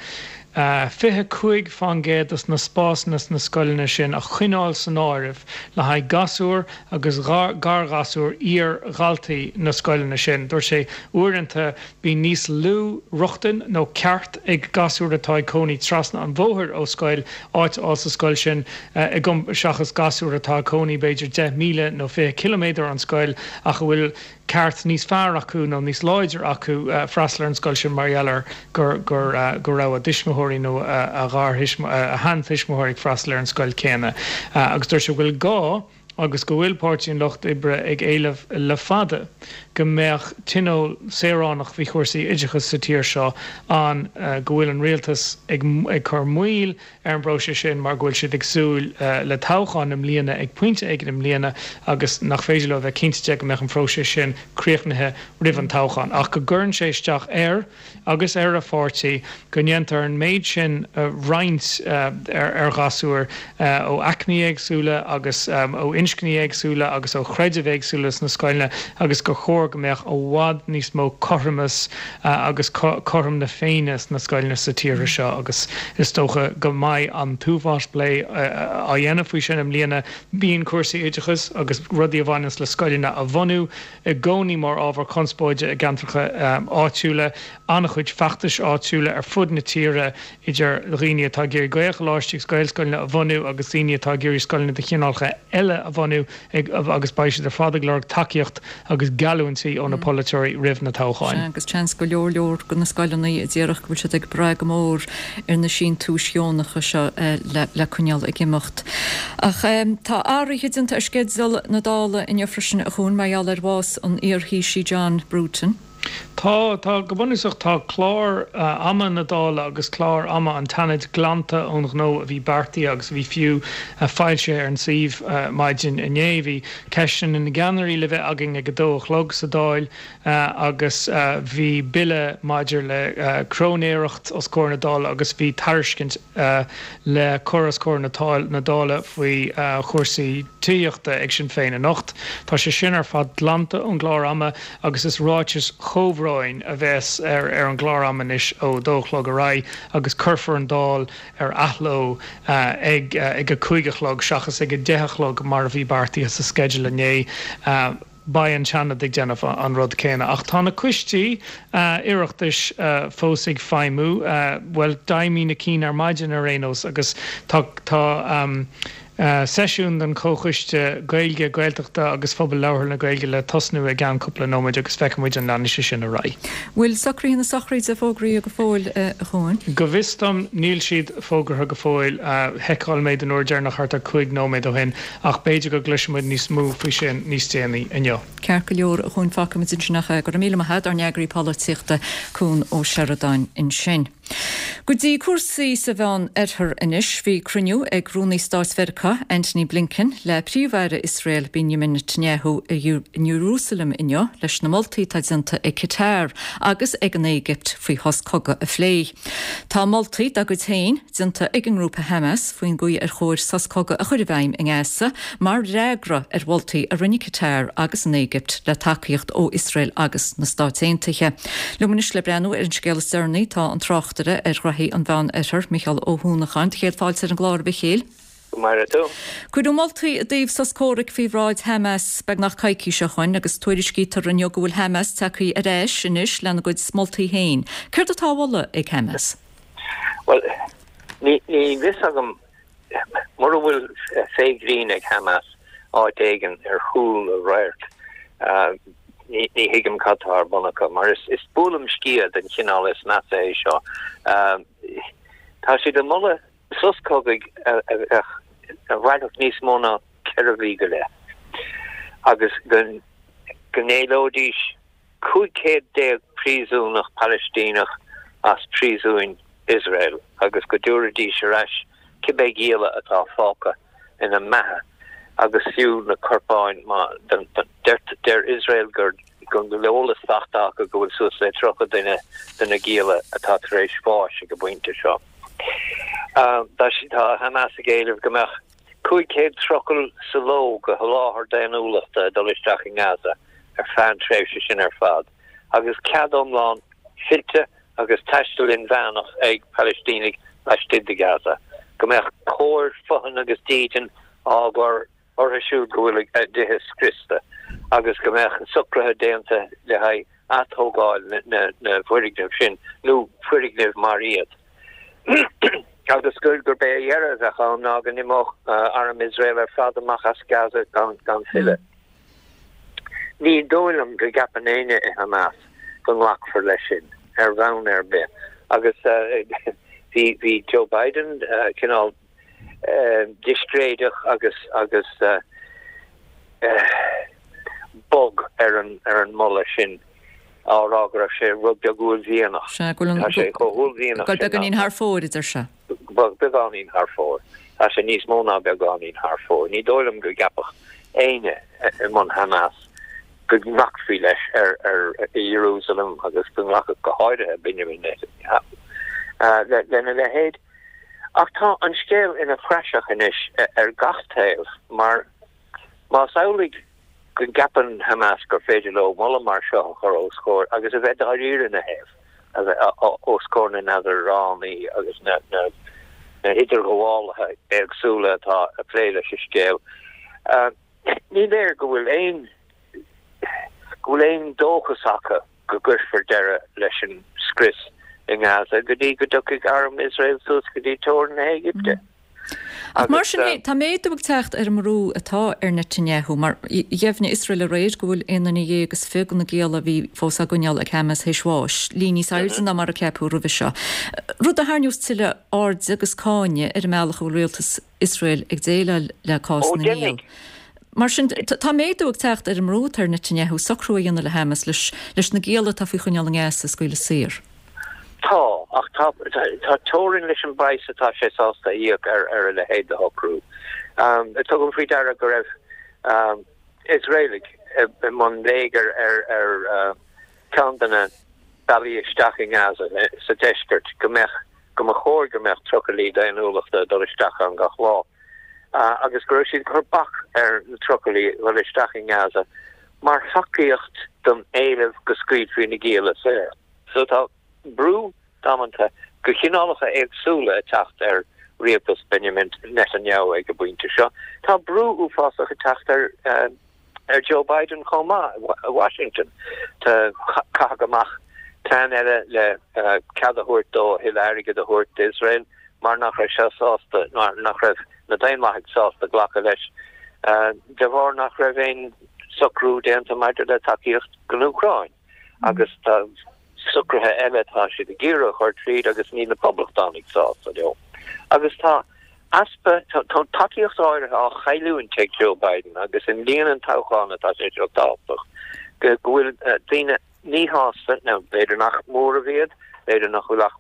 S14: 25% de na spásanna sna scoileanna sin a choinneáil san áireamh le haghaidh gasúr agus garghasúr iar-dhaltaí na scoileanna sin. Dúirt sé, uaireanta bíonn níos lú rochtain nó ceart ag gasúr atá ag cónaí trasna an bhóthair ó scoil áit a fháil sa scoil sin seachas gasúr atá ag cónaí b'fhéidir 10 míle nó 20 ciliméadar ón scoil ach a bhfuil ceart níos fearr acu nó níos láidre acu freastal ar an scoil sin mar gheall ar gur go raibh a dtuismitheoirí nó a sheantuismitheoirí ag freastal ar an scoil céanna. Agus dúirt sé go bhfuil gá agus go bhfuil Páirtí an Lucht Oibre ag éileamh le fada go mbeadh tionól saoránach faoi chúrsaí oideachais sa tír seo ann, go bhfuil an rialtas ag cur moill ar an bpróiseas sin mar go bhfuil siad ag súil le toghchán i mbliana ag pointe éigin i mbliana agus nach féidir leo a bheith cinnte de go mbeadh an phróiseas sin críochnaithe roimh an toghchán. Ach go gcuireann sé isteach air agus ar a pháirtí go ndéantar an méid sin roinnt ar ghasúir ó aicmí éagsúla agus ó inscní éagsúla agus ó chreidimh éagsúla sna scoileanna agus gur chóir go mbeadh i bhfad níos mó cothromas agus cothrom na Féinne sna scoileanna sa tír seo agus is dócha go mbeidh an t-uafás plé á dhéanamh faoi sin i mbliana. Bíonn cúrsaí oideachais agus rudaí a bhaineanns le scoileanna a bhunú i gcónaí mar ábhar conspóide i gceantracha áitiúla. An-chuid feachtais áitiúla ar fud na tíre idir dhaoine atá ag iarraidh Gaelcholáistí agus Gaelscoileanna a bhunú agus daoine atá ag iarraidh scoileanna de chineálacha eile a bhunú agus beidh siad ar fad ag lorg tacaíocht agus geallúintí ó na polaiteoirí roimh na toghcháin.
S1: Sea, agus seans go leor leor de na scoileanna a déarfadh go bhfuil siad ag brath go mór ar na síntiúis dheonacha seo le coinneáil ag imeacht. Ach tá athruithe déanta ar sceideal na Dála inniu freisin, a Chuain, mar gheall ar bhás an iar-Thaoisigh John Bruton.
S14: Tá, tá, go bunúsach tá clár ama na Dála agus clár ama an tSeanaid glanta ón ghnó a bhí beartaithe agus a bhí fiú foilsithe ar an suíomh maidin inné. Bhí ceisteanna na gceannairí le bheith againn ag a dó a chlog sa Dáil agus bhí bille maidir le cróinéireacht os comhair na Dála agus bhí tairiscint le cur os comhair na Dála faoi chúrsaí tithíochta ag Sinn Féin anocht. Tá sé sin ar fad glanta ón gclár ama agus is ráitis chomhbhróin. Sheireadáin a bheas ar an gclár ama anois ó dó a chlog ar aghaidh agus cuirfear an Dáil ar athló ag a 5 a chlog seachas ag a 10 a chlog mar a bhí beartaithe sa sceideal inné. Beidh an Seanad ag déanamh an rud céanna. Ach tá na coistí Oireachtais fós ag feidhmiú, bhuel d'fheidhmigh na cinn ar maidin ar aon nós agus tá tá seisiún den Chomhchoiste Gaeilge, Gaeltachta agus Phobal Labhartha na Gaeilge le tosnú i gceann cúpla nóiméid agus feicfidh muid an leanfaidh sé sin ar aghaidh.
S1: Bhfuil socruithe na sochraide fógraithe go fóill, a Chuain?
S14: Go bhfios dom níl siad fógartha go fóill. Sheiceáil mé den uair deireanach thart ar 5 nóiméad ó shin ach b'fhéidir go gcloisfidh muid níos mó faoi sin níos déanaí inniu.
S1: Ceart go leor, a Chuain, fágfaidh muid ansin é. Go raibh míle maith agat, ár n-eagraí polaitíochta, Cuan Ó Seireadáin ansin. Go dtí cúrsaí sa Mheán Oirthear anois. Bhí cruinniú ag Rúnaí Stáit Mheiriceá, Antony Blinken, le Príomh-Aire Iosrael, Benjamin Netanyahu i Iarúsailéim inniu leis na moltaí atá déanta ag Qatar agus ag an Éigipt faoi shos cogaidh a phlé. Tá moltaí dá gcuid féin déanta ag an ngrúpa Hamas faoin gcaoi ar chóir sos cogaidh a chur i bhfeidhm i nGaza mar fhreagra ar mholtaí a rinne Qatar agus an Éigipt le tacaíocht ó Iosrael agus na Stáit Aontaithe. Liom anois le breathnú ar an scéal is deireanaí tá an tráchtaire ar ghraithí an Mheán Oirthir, Micheál Ó hUanacháin. Do chéad fáilte ar an gclár, a Mhichéil.
S15: Go maire tú.
S1: Cuireadh moltaí i dtaobh sos comhraic faoi bhráid Hamas beagnach coicís ó shoin agus tuairiscítear inniu go bhfuil Hamas tagtha ar ais anois lena gcuid moltaí féin. Céard atá á mholadh ag Hamas?
S15: Bhuel, ní fios agam mura bhfuil féith ghrinn ag Hamas áit éigin ar chúl a radhairc, ní thuigim cad tá ar bun acu, mar is buaileam sciath den chineál is measa é seo. Tá siad ag moladh sos cogaidh a bheadh, a mhairfeadh níos mó ná 4 mhí go leith agus go n-éileoidís 15 céad príosúnach Palaistíneach as príosúin Iosrael agus go dtabharfaidís ar ais cibé gialla atá fágtha ina mbeatha agus fiú na corpáin má deir Iosrael gur go bhfuil eolas faighte acu go bhfuil suas le 30 duine de na gialla atá tar éis bháis ag an bpointe seo. Tá Hamas ag éileamh go mbeadh 500 trucail sa ló de sholáthar daonnúlachta ag dul isteach i nGaza ar feadh an tréimhse sin ar fad agus cead iomlán fillte agus taisteal inmheánach ag Palaistínigh laistigh de Gaza, go mbeadh cóir fothain agus dídean á gcur orthu siúd go bhfuil a dtithe scriosta agus go mbeadh socruithe déanta le haghaidh atógáil na bhfoirgneamh sin nó foirgnimh mar iad agus gurb é a dheireadh a bheadh ann ná go n-imeodh arm Iosrael ar fad amach as Gaza gan filleadh. Ní dóigh liom go gceapann éinne i Hamas go nglacfar leis sin ar bhonn ar bith agus bhí Joe Biden cineál discréideach agus agus bog ar an ar an moladh sin á rá go raibh sé rud beag uaillmhianach.
S1: Sea, go bhfuil an
S15: Tá sé chomh huaillmhianach
S1: go bhfuil beagáinín thar fóir, a deir sé.
S15: Beagáinín thar fóir. Tá sé níos mó ná beagáinín thar fóir. Ní dóigh liom go gceapfadh éinne i mbun Hamas go nglacfaí leis ar ar i Ierúsalem agus go nglacfadh go háirithe Benjamin Netanyahu lena leithéid. Ach tá an scéal ina phraiseach anois ar gach taobh mar más amhlaidh go gceapann Hamas gur féidir leo moladh mar seo a chur os comhair agus a bheith dáiríre ina thaobh, a bheith os comhair na n-eadránaí agus na n-idirghabhálaithe éagsúla atá ag plé leis an scéal, ní léir go bhfuil aon go bhfuil aon dóchas acu go gcuirfear deireadh leis an scrios i nGaza go dtí go dtiocfaidh arm Iosrael suas go dtí teorainn na hÉigipte.
S1: Ach mar sin féin, tá méadú ag teacht ar an mbrú atá ar Netanyahu, mar dheimhnigh Iosrael aréir go bhfuil aon duine dhéag is 20 de na gialla a bhí fós á gcoinneáil ag Hamas théis bháis, líon níos airde ná mar a ceapadh roimhe seo. Rud a tharraingeos tuilleadh airde agus cáinte ar an mbealach a bhfuil rialtas Iosrael ag déileáil le cás na ngiall. Mar sin, tá méadú ag teacht ar an mbrú atá ar Netanyahu socrú a dhéanamh le Hamas leis na gialla atá faoi choinneáil i nGaza a scaoileadh saor.
S15: Tá, ach tá tá teorainn leis an bpraghas atá sé sásta a íoc ar ar a leithéid de shocrú. Tugaim faoi deara go raibh Iosraelaigh i mbun léigir ar ar ceann de na bealaí isteach i nGaza sa deisceart go mbeadh go mba chóir go mbeadh trucailí daonnúlachta ag dul isteach ann gach lá. agus go raibh siad ag cur bac ar na trucailí dhul isteach i nGaza. mar thacaíocht don éileamh go scaoilfí na gialla saor. So tá brú damanta de chineálacha éagsúla ag teacht ar rialtas Benjamin Netanyahu ag an bpointe seo. Tá brú uafásach ag teacht ar ar Joe Biden chomh maith i Washington. Tá caitheadh amach plean eile le cead a thabhairt dó a thuilleadh airgid a thabhairt d'Iosrael mar nach raibh sé sásta, mar nach raibh na Daonlathaigh sásta glacadh leis de bharr nach raibh aon socrú déanta maidir le tacaíocht don Úcráin. Agus tá socruithe eile atá siad ag iarraidh a chur tríd agus níl na Poblachtánaigh sásta leo. Agus tá easpa, tá tacaíocht áirithe á chailliúint ag Joe Biden agus i mbliain an toghcháin atá sé seo tábhachtach, go bhfuil daoine míshásta, nó b'fhéidir nach móramh iad, b'fhéidir nach bhfuil ach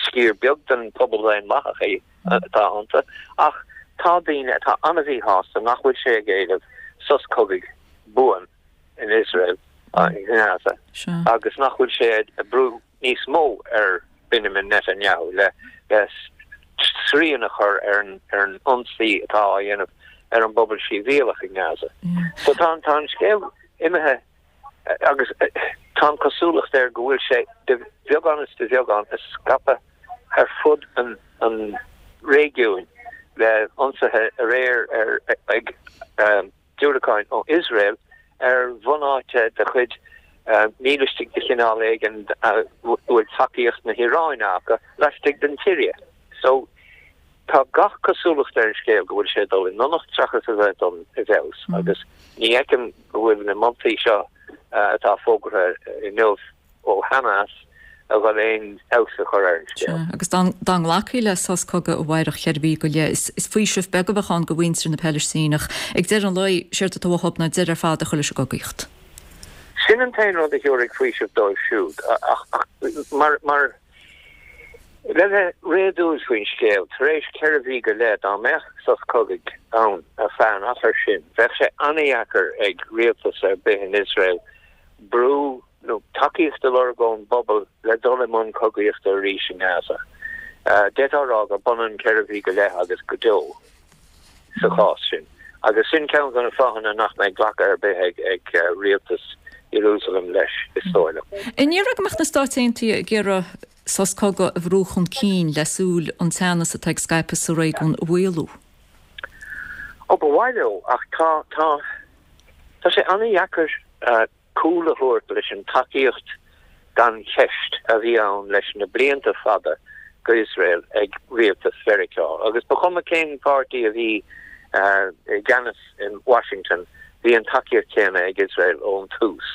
S15: sciar beag den phobal daonlathach é atá iontu, ach tá daoine atá an-mhíshásta nach bhfuil sé ag éileamh sos cogaidh buan in Iosrael, i nGaza, agus nach bhfuil sé ag brú níos mó ar Benjamin Netanyahu le srian a chur ar an ionsaí atá á dhéanamh ar an bpobal sibhialach i nGaza. So tá an scéal imithe agus tá an chosúlacht air go bhfuil sé de bheagán is de bheagán ag scaipeadh ar fud an réigiúin le ionsaithe aréir ar ag diúracáin ó Iosrael ar bhunáite de chuid mílistigh de chineál éigin a bhfuil tacaíocht na hIaráine acu laistigh den tSiria. So, tá gach cosúlacht ar an scéal go bhfuil sé ag dul i ndonacht seachas a bheith ag dul i bhfeabhas agus ní fheicim go bhfuil na moltaí seo atá fógartha inniu ó Hamas a dhul aon fheabhas a chur ar an scéal.
S1: Sea, agus dá nglacfaí le sos cogaidh amárach cheithre mhí go leith, is faoiseamh beag a bheadh ann do mhuintir na Palaistíneach. Ag deireadh an lae, séard atá uathu ná deireadh ar fad a chur leis an gcogaíocht.
S15: Sin an t-aon rud a thabharfaidh faoiseamh dóibh siúd, ach mar, mar, le bheith réadúil faoin scéal, tar éis cheithre mhí go leith, dá mbeadh sos cogaidh ann ar feadh an achair sin, bheadh sé an-dheacair ag rialtas ar bith in Iosrael brú nó tacaíocht a lorg ón bpobal le dul i mbun cogaíochta arís i nGaza. D'fhéadfá a rá gur b'ionann ceithre mhí go leith agus go deo sa chás sin. Agus sin ceann de na fáthanna nach mbeidh glacadh ar bith ag rialtas Iarúsailéim leis, is dóigh liom.
S1: An ndéarfá go mbeadh na Stáit Aontaithe ag iarraidh sos cogaidh a bhrú chun cinn le súil an teannas atá ag scaipeadh sa réigiún a mhaolú?
S15: Ó, ba mhaith leo, ach tá, tá, tá sé an-dheacair cúl a thabhairt leis an tacaíocht gan cheist a bhí ann leis na blianta fada go Iosrael ag rialtas Mheiriceá. Agus ba chuma cén páirtí a bhí i gceannas in Washington, bhí an tacaíocht chéanna ag Iosrael ón tús.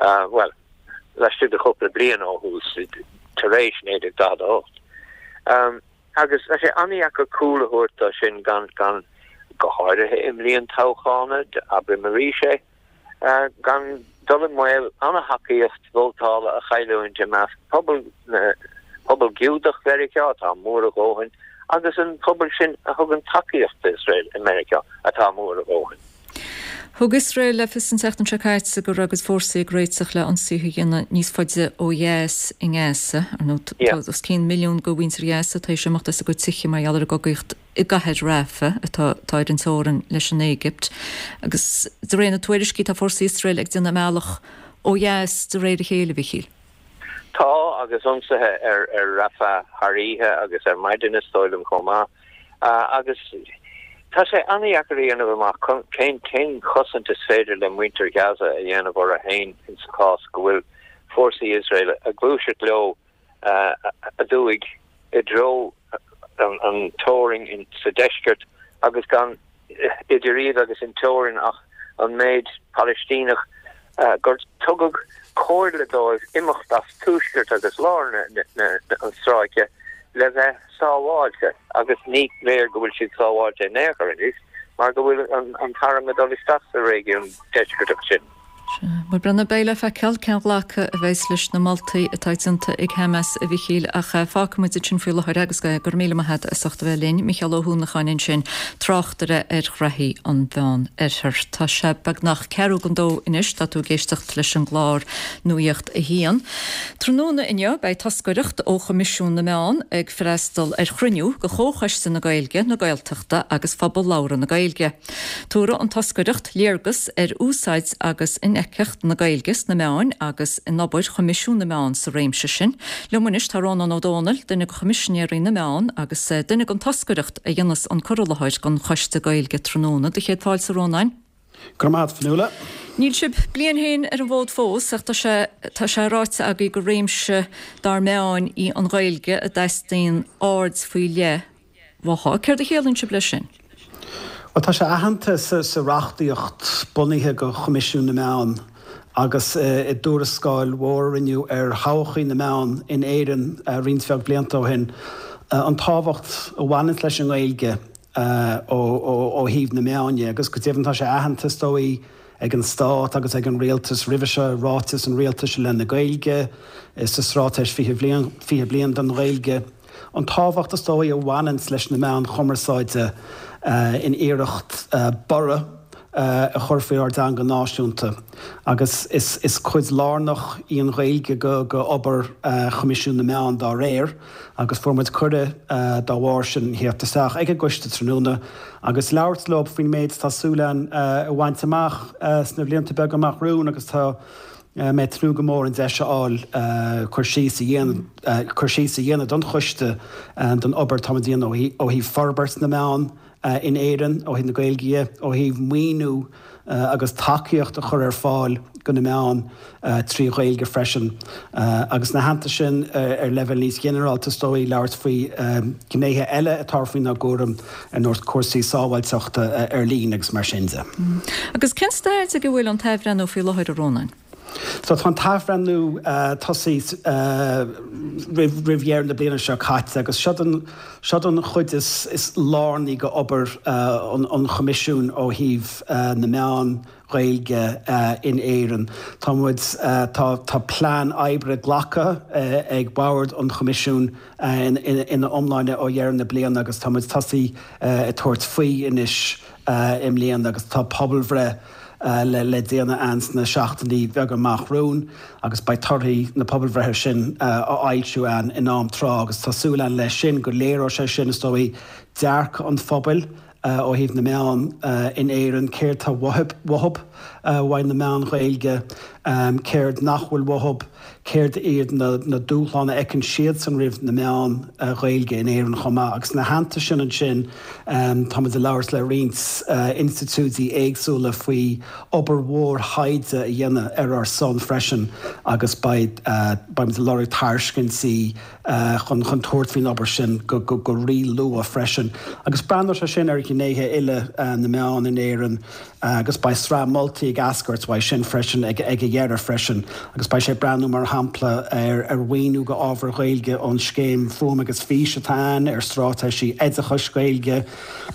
S15: Bhuel, laistigh de chúpla bliain ó thús, tar éis 1948. Agus tá sé an-dheacair cúl a thabhairt dó sin gan, gan, go háirithe i mbliain toghchána, abraim arís é, gan dul i mbaol an-thacaíocht vótála a chailliúint i measc pobal na, pobal Giúdach Mheiriceá, atá mór a dhóthain, agus an pobal sin a thugann tacaíocht d'Iosrael i Meiriceá, atá mór a dhóthain.
S1: Thug Iosrael le fios an tseachtain seo caite go raibh a gcuid fórsaí ag réiteach le ionsaithe a dhéanamh níos faide ó dheas i nGaza. Ar ndóigh, tá os cionn milliún de mhuintir Ghaza tar éis imeacht as a gcuid tithe mar gheall ar an gcogaíocht i gcathair Rafah, atá atá ar an teorainn leis an Éigipt. Agus de réir na tuairiscí, tá fórsaí Iosrael ag déanamh a mbealach ó dheas de réir a chéile, a Mhichíl.
S15: Tá, agus ionsaithe ar ar Rafah thar oíche agus ar maidin is dóigh liom chomh maith. Agus tá sé an-dheacair a dhéanamh amach cén cén chosaint is féidir le muintir Ghaza a dhéanamh orthu féin insa chás go bhfuil fórsaí Iosrael ag gluaiseacht leo aduaidh i dtreo an teorainn sa deisceart agus gan idir iad agus an teorainn ach an méid Palaistíneach gur tugadh comhairle dóibh imeacht as tuaisceart agus lár an stráice le bheith sábháilte agus ní léir go bhfuil siad sábháilte in aon chor anois mar go bhfuil an t-arm ag dul isteach sa réigiún deisceartach sin.
S1: Sea. Bhuel, Brenna, beidh le feiceáil cén ghlacadh a bheas leis na moltaí atá déanta ag Hamas, a Mhichíl, ach fágfaimid ansin faoi láthair é agus go raibh míle maith agat as ucht a bheith linn. Micheál Ó hUanacháin ansin, tráchtaire ar ghraithí an Mheán Oirthir. Tá sé beagnach ceathrú don dó anois, tá tú ag éisteacht leis an gclár Nuacht a hAon. Tráthnóna inniu beidh toscaireacht ó Choimisiún na Meán ag freastal ar chruinniú de Chomhchoiste na Gaeilge, na Gaeltachta agus Phobal Labhartha na Gaeilge. Tabharfaidh an toscaireacht léargas ar úsáid agus infheictheacht na Gaeilge sna meáin agus in obair Choimisiún na Meán sa réimse sin. Liom anois tá Rónán Ó Domhnaill, duine de Choimisinéirí na Meán agus duine den toscaireacht a dhéanfas an cur i láthair don Choiste Gaeilge tráthnóna. Do chéad fáilte, a Rónáin.
S16: Go raibh maith agat, Fionnuala.
S1: Níl sibh bliain féin ar an bhfód fós ach tá sé tá sé ráite agaibh gur réimse dár meáin í an Ghaeilge a dteastaíonn aird faoi leith uaithi. Céard a chiallaíonn sibh leis sin?
S16: Bhuel, tá sé aitheanta sa reachtaíocht bunaithe do Choimisiún na Meán agus i dtuarascáil mhór a rinneadh ar thodhchaí na meán in Éirinn roinnt bheag blianta ó shin, an tábhacht a bhaineanns leis an nGaeilge ó thaobh na meán dhe. Agus go deimhin tá sé aitheanta, is dóigh, ag an Stát agus ag an Rialtas roimhe seo i Ráiteas an Rialtais i leith na Gaeilge, sa Straitéis 20 Bliain, 20 Bliain don Ghaeilge. An tábhacht is dóigh a bhaineanns leis na meáin chumarsáide in iarracht borradh a chur faoi ár dteanga náisiúnta agus is cuid lárnach í an Ghaeilge go obair Choimisiún na Meán dá réir agus fuair muid cuireadh dá bharr sin theacht isteach ag an gcoiste tráthnóna agus labhairt leo faoin méid atá súil againn a bhaint amach sna blianta beaga amach romhainn agus tá mé ag tnúth go mór an deis a fháil cur síos a dhéanamh cur síos a dhéanamh don choiste don obair atáimid a dhéanamh ó thaobh forbairt na meán in Éirinn, ó thaobh na Gaeilge dhe, ó thaobh maoiniú agus tacaíocht a chur ar fáil do na meáin trí Ghaeilge freisin. Agus ina theannta sin, ar leibhéal níos ginearálta is dóigh, labhairt faoi ghnéithe eile atá faoinár gcúram ar nós cúrsaí sábháilteachta ar líne agus mar sin de.
S1: Agus cén staid ag a bhfuil an t-athbhreithniú faoi láthair, a Rónáin?
S16: So tá an t-athbhreithniú tosaithe roimh dheireadh na bliana seo caite agus seod seod an chuid is lárnaí de obair an Choimisiúin ó thaobh na meán Ghaeilge in Éirinn. Tá muid, tá tá plean oibre glactha ag Bord an Choimisiúin ina iomláine ó dheireadh na bliana agus tá muid tosaithe ag tabhairt faoi anois i mbliana agus tá pobalbhreith le déanamh ann sna seachtainí beaga amach romhainn agus beidh torthaí na pobalbhreithe sin á fhoilsiú ann in am tráth agus tá súil ann leis sin go léireoidh sé sin, is dóigh, dearcadh an phobail ó thaobh na meán in Éirinn, céard tá uathu uaidh na meáin Ghaeilge, céard nach bhfuil uathu, céard iad na dúshláin a fheiceann siadsan roimh na meáin Ghaeilge in Éirinn chomh maith. Agus ina theannta sin ansin, táimid ag labhairt le roinnt institiúidí éagsúla faoi obair mhór thaighde a dhéanamh ar ár son freisin agus beidh, beimid ag lorg tairiscintí chun chun tabhairt faoin obair sin go go rí-luath freisin. Agus breathnóidh sé sin ar ghnéithe uile na meán in Éirinn agus beidh sraith moltaí ag eascairt uaidh sin freisin ag ag a dheireadh freisin. Agus beidh sé ag breathnú mar shampla ar ar mhaoiniú go ábhar Ghaeilge ón scéim Fuaim agus Fís atá ann, ar straitéisí oideachais Gaeilge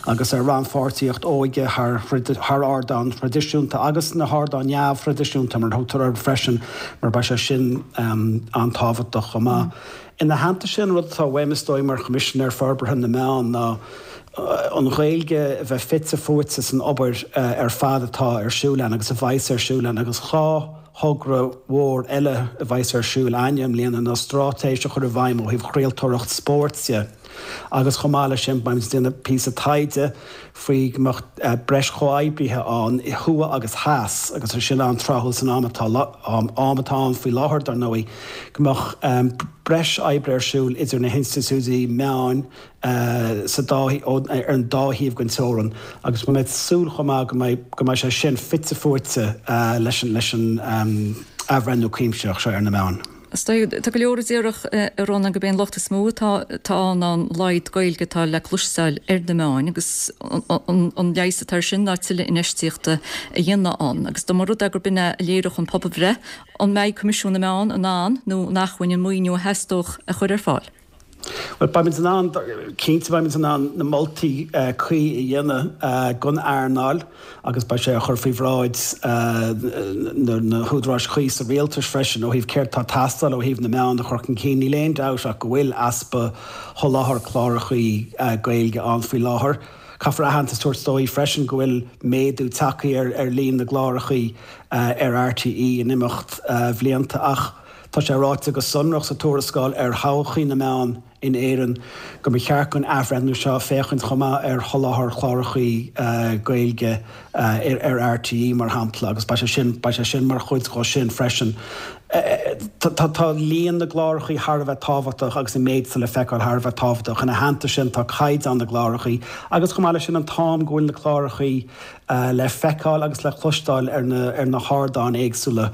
S16: agus ar rannpháirtíocht óige thar thar ardáin thraidisiúnta agus na hardáin neamhthraidisiúnta mar a thugtar orthu freisin mar beidh sé sin an-tábhachtach chomh maith. Ina theannta sin, rud atá uaim is dóigh mar Choimisinéir Forbartha na Meán ná an Ghaeilge a bheith fite fuaite san obair ar fad atá ar siúl ann agus a bheas ar siúl ann agus 2 thogra mhór eile a bheas ar siúl a'inne i mbliana ná straitéis a chur i bhfeidhm ó thaobh chraoltóireacht spóirt de agus chomh maith leis sin beimid ag déanamh píosa taighde faoi go mbeadh breis chomhoibrithe ann thuaidh agus theas agus é sin an-tráthúil san am atá am atá ann faoi láthair dar ndóigh, go mbeadh breis oibre ar siúl idir na hinstitiúidí meáin sa dá ar an dá thaobh den teorainn agus beidh mé ag súil chomh maith go mbeidh go mbeidh sé sin fite fuaite leis an leis an athbhreithniú cuimsitheach seo ar na meáin.
S1: Is dóigh, tá go leor a déarfadh, a Rónáin, gurb é an locht is mó atá ann ná an laghad Gaeilge atá le cloisteáil ar na meáin agus an leigheas atá air sin ná tuilleadh infheistíochta a dhéanamh ann. Agus dá mba rud é gurb in é a léireodh an pobalbhreith, an mbeidh Coimisiún na Meán in ann nó in acmhainn an maoiniú a theastódh a chur ar fáil?
S16: Bhuel, beimid in ann, cinnte beimid in ann na moltaí cuí a dhéanamh don earnáil agus beidh sé á chur faoi bhráid na húdaráis chuí sa rialtas freisin ó thaobh céard atá ag teastáil ó thaobh na meán a chur chun cinn. Níl aon dabht ach go bhfuil easpa sholáthar clárachaí Gaeilge ann faoi láthair. Caithfear aitheantas a thabhairt dóibh freisin go bhfuil méadú tagtha ar líon na gclárachaí ar RTÉ in imeacht bhlianta ach, Tá sé ráite go sonrach sa tuarascáil ar thodhchaí na meán in Éirinn go mba cheart don athbhreithniú seo féachaint chomh maith ar sholáthar chlárachaí Gaeilge ar RTÉ, mar shampla, agus beidh sé sin, beidh sé sin mar chuid dhó sin freisin. Tá líon na gclárachaí thar a bheith tábhachtach agus an méid atá le feiceáil thar a bheith tábhachtach. Ina theannta sin tá caighdeán na gclárachaí agus chomh maith leis sin an t-am go bhfuil na clárachaí le feiceáil agus le cloisteáil ar na ar na hardáin éagsúla,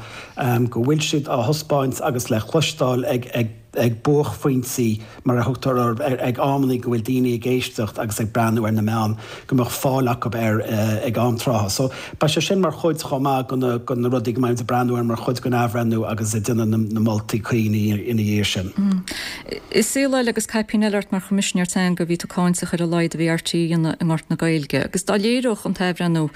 S16: go bhfuil siad á thaispeáint agus le cloisteáil ag ag ag buaicphointí, mar a thugtar orthu, ag amannaí go bhfuil daoine ag éisteacht agus ag breathnú ar na meáin, go mbeadh fáil acu air ag am trátha. So, beidh sé sin mar chuid chomh maith de na de na rudaí go mbeimid ag breathnú air mar chuid den athbhreithniú agus ag déanamh na na moltaí cuí ina dhiaidh sin.
S1: I saol eile agus caipín eile ort mar Choimisinéir Teanga bhí tú cáinteach ar a laghad a bhí RTÉ a dhéanamh i ngort na Gaeilge agus dá léireodh an t-athbhreithniú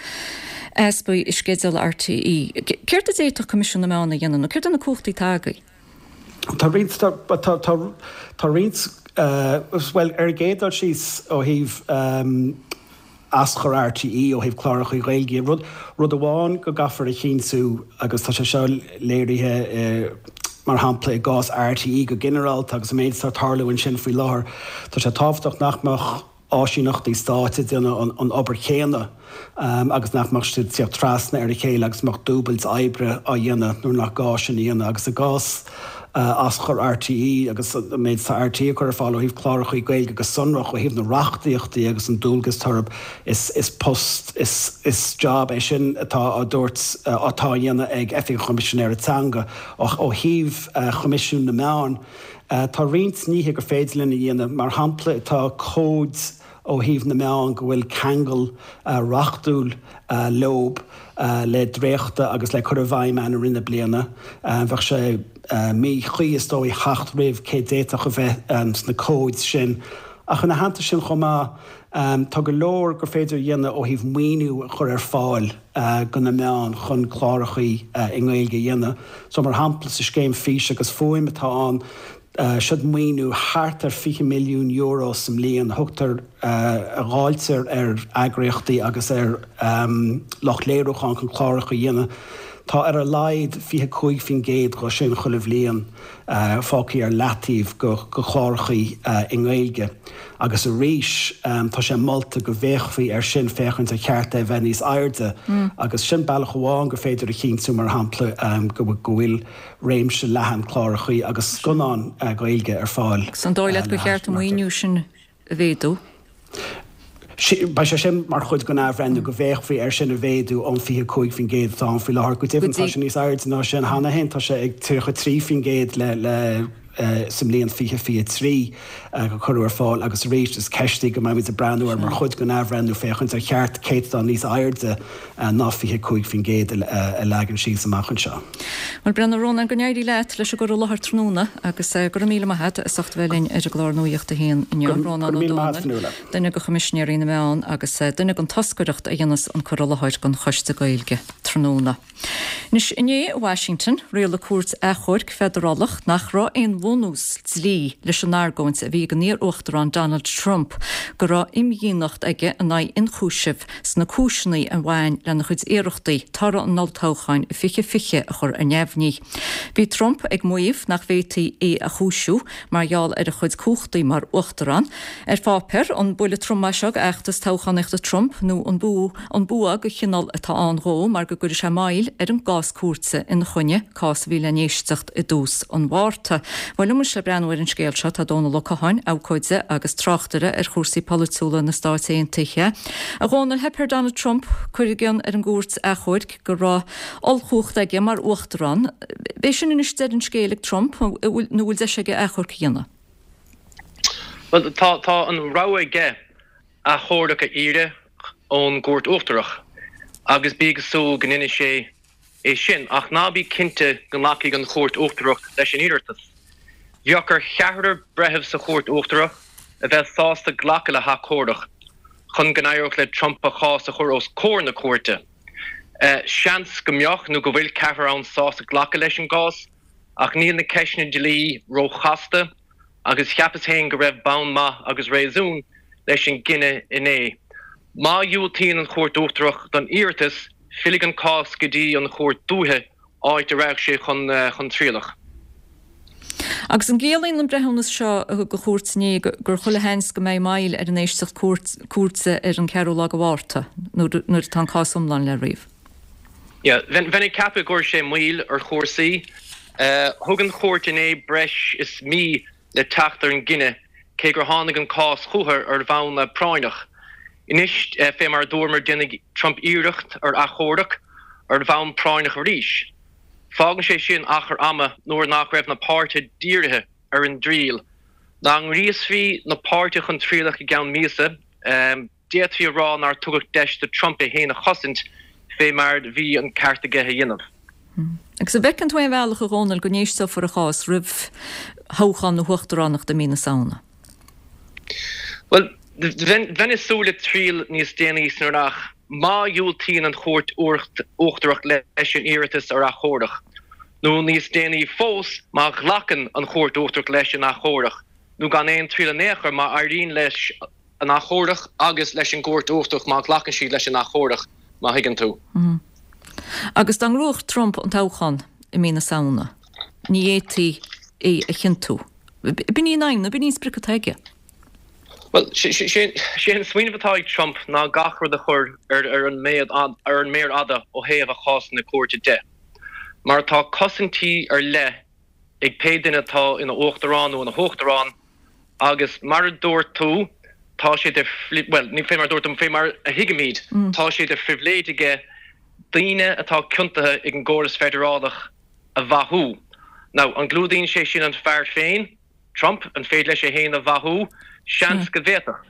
S1: easpaí i sceideal RTÉ, céard a d'fhéadfadh Coimisiún na Meán a dhéanamh nó céard é na cumhachtaí atá agaibh?
S16: Tá roinnt, tá, tá, tá roinnt, bhuel ar an gcéad dul síos ó thaobh, aschur RTÉ ó thaobh cláracha Gaeilge. Rud, rud amháin go gcaithfear a chinntiú, agus tá sé seo léirithe mar shampla i gcás RTÉ go ginearálta agus an méid atá ag tarlú ansin faoi láthair, tá sé tábhachtach nach mbeadh áisíneachtaí stáit ag déanamh an obair chéanna agus nach mbeadh siad ag tíocht trasna ar a chéile agus go mbeadh dúbailt oibre á dhéanamh nuair nach gá sin a dhéanamh. Agus i gcás aschur RTÉ agus an méid atá RTÉ ag cur ar fáil ó thaobh clárachaí Gaeilge go sonrach, ó thaobh na reachtaíochtaí agus an dualgas atá orthu, is post, is job é sin atá á dtabhairt, atá á dhéanamh ag Oifig an Choimisinéara Teanga. Ó thaobh Choimisiún na Meán, tá roinnt nithe gur féidir linn a dhéanamh. Mar shampla, tá cóid ó thaobh na meán go bhfuil ceangal reachtúil leob le dréachtadh agus le cur i bhfeidhm ann i rith na bliana. Bheadh sé míchuí, is dóigh, theacht roimh cé d'fhéadfadh a bheith sna cóid sin. Ach ina theannta sin chomh maith, tá go leor gur féidir a dhéanamh ó thaobh maoiniú a chur ar fáil do na meáin chun clárachaí i nGaeilge a dhéanamh. So mar shampla sa scéim Fís agus Fuaim atá ann, Siod maoiniú thart ar €20 milliún sa mbliain a thugtar, a dháiltear ar eagraíochtaí agus ar lucht léiriúcháin chun cláracha a dhéanamh. Tá ar a laghad 25% dhe sin chuile bhliain fágtha ar leataobh go chlárachaí i nGaeilge. Agus arís tá sé molta go bhféachfaí air sin féachaint ar cheart é a bheith níos airde. Agus sin bealach amháin gur féidir a chinntiú, mar shampla, go bhfuil réimse leathan clárachaí agus scannán Gaeilge ar fáil.
S1: Agus an dóigh leat gur cheart an maoiniú sin a mhéadú?
S16: Beidh sé sin mar chuid den athbhreithniú, go bhféachfaí air sin a mhéadú ón 25% atá ann faoi láthair. Go deimhin, tá sé níos airde ná sin cheana féin, tá sé ag 33% le sa mbliain 2023 a cuireadh ar fáil agus arís is ceist í go mbeimid ag breathnú air mar chuid den athbhreithniú féachaint ar cheart céatadán níos airde ná 25% a leagan síos amach anseo.
S1: Bhuel, Breandán, a Rónáin, go n-éirí leat leis an gcur i láthair tráthnóna agus go raibh míle maith agat as ucht a bheith linn ar an gclár Nuacht a hAon inniu. Rónán Ó Domhnaill, duine de Choimisinéirí na Meán agus duine den toscaireacht a dhéanas an cur i láthair don Choiste Gaeilge tráthnóna. Anois, inné i Washington, rialaigh cúirt achomhairc feidearálach nach raibh aon bhunús dlí leis an argóint a bhí ag an iar-uachtarán Donald Trump go raibh imdhíonacht aige in aghaidh ionchúisimh sna cúiseanna a bhain lena chuid iarrachtaí toradh an olltoghcháin i 2020 a chur ar neamhní. Bhí Trump ag maíomh nach bhféadfaí é a chúisiú mar gheall ar a chuid cumhachtaí mar uachtarán. Ar pháipéar, an buille trom é seo d'fheachtas toghchánaíochta Trump nó an An bua de chineál atá ann dhó mar go gcuirfidh sé moill ar an gcás cúirte ina choinne, cás a bhí le n-éisteacht i dtús an Mhárta. Bhuel, liom anois le breathnú ar an scéal seo tá Dónal Ó Catháin, abhcóide agus tráchtaire ar chúrsaí polaitiúla na Stáit Aontaithe. A Dhónaill, theip ar Donald Trump cur i gcionn ar an gcúirt achomhairc go raibh ollchumhacht aige mar uachtarán. B'é sin anois deireadh an scéil ag Trump nó bhfuil deis aige achomharc a dhéanamh?
S17: Bhuel, tá tá an rogha aige achomharc a iarraidh ón gCúirt Uachtarach agus bí ag súil go ndéanfaidh sé é sin, ach ná bí cinnte go nglacfaidh an Chúirt Uachtarach leis an iarratas. Bheadh ar cheathrar breitheamh sa Chúirt Uachtarach a bheith sásta glacadh le hachomharc chun go n-éireodh le Trump a chás a chur os comhair na cúirte. Seans go mbeadh nó go bhfuil ceathrar ann sásta glacadh leis an gcás ach níl na ceisteanna dlí róchasta agus cheapas féin go raibh bonn maith agus réasún leis an gcinneadh inné. Má dhiúltaíonn an Chúirt Uachtarach don iarratas, fillfidh an cás go dtí an Chúirt Dúiche, áit a rachaidh sé chun trialach.
S1: Agus an gciallaíonn an breithiúnas seo a thug an chúirt inné gur chuile sheans go mbeidh moill ar an éisteacht cúirte ar an 4ú lá de Mhárta, nuair atá an cás iomlán le ríomh?
S17: Yeah, bheinn ag ceapadh go gcuirfidh sé moill ar chúrsaí. Thug an chúirt inné breis is mí le teacht ar an gcinneadh, cé gur tháinig an cás chucu ar bhonn práinneach. Anois, fé mar a dúramar, déanfaidh Trump iarracht ar achomharc ar bhonn práinneach arís. Fágann sé sin achar ama nuair nach raibh na páirtithe dírithe ar an dtriail. Dá ngríosfaí na páirtithe chun trialach i gceann míosa, d'fhéadfaí a rá nár tugadh deis do Trump é féin a chosaint fé mar bhí an ceart aige a dhéanamh.
S1: Agus an bhfeiceann tú aon bhealach, a Dhónaill, go n-éisteofar a chás roimh thoghchán na huachtaránachta i mí na Samhna?
S17: Bhuel, bheinn ag súil le triail níos déanaí san earrach má dhiúltaíonn an Chúirt Uachtarach leis an iarratas ar achomharc, nó níos déanaí fós má ghlacann an Chúirt Uachtarach leis an achomharc, nó gan aon triail in aon chor má éiríonn leis an achomharc agus leis an gCúirt Uachtarach má ghlacann siad leis an achomharc, má thuigeann tú.
S1: Agus dá ngnóthódh Trump an toghchán i mí na Samhna, ní fhéadfaí é a chiontú. B'in í an aidhm, nó b'in í an sprioc atá aige.
S17: Bhuel, sé an smaoineamh atá ag Trump ná gach rud a chur ar an méar fhada ó thaobh a chásanna cúirte de. Mar tá cosaintí ar leith ag pé duine atá ina uachtarán nó ina huachtarán agus mar a dúirt tú, tá sé de, bhuel, ní fé mar a dúirt tú, fé mar a thuigimid, tá sé de phribhléid aige daoine atá ciontaithe ag an gcóras feidearálach a mhaithiú. Now, an gclúdaíonn sé sin an fear féin, Trump? An féidir leis é féin a mhaithiú? Seans go bhféadfadh.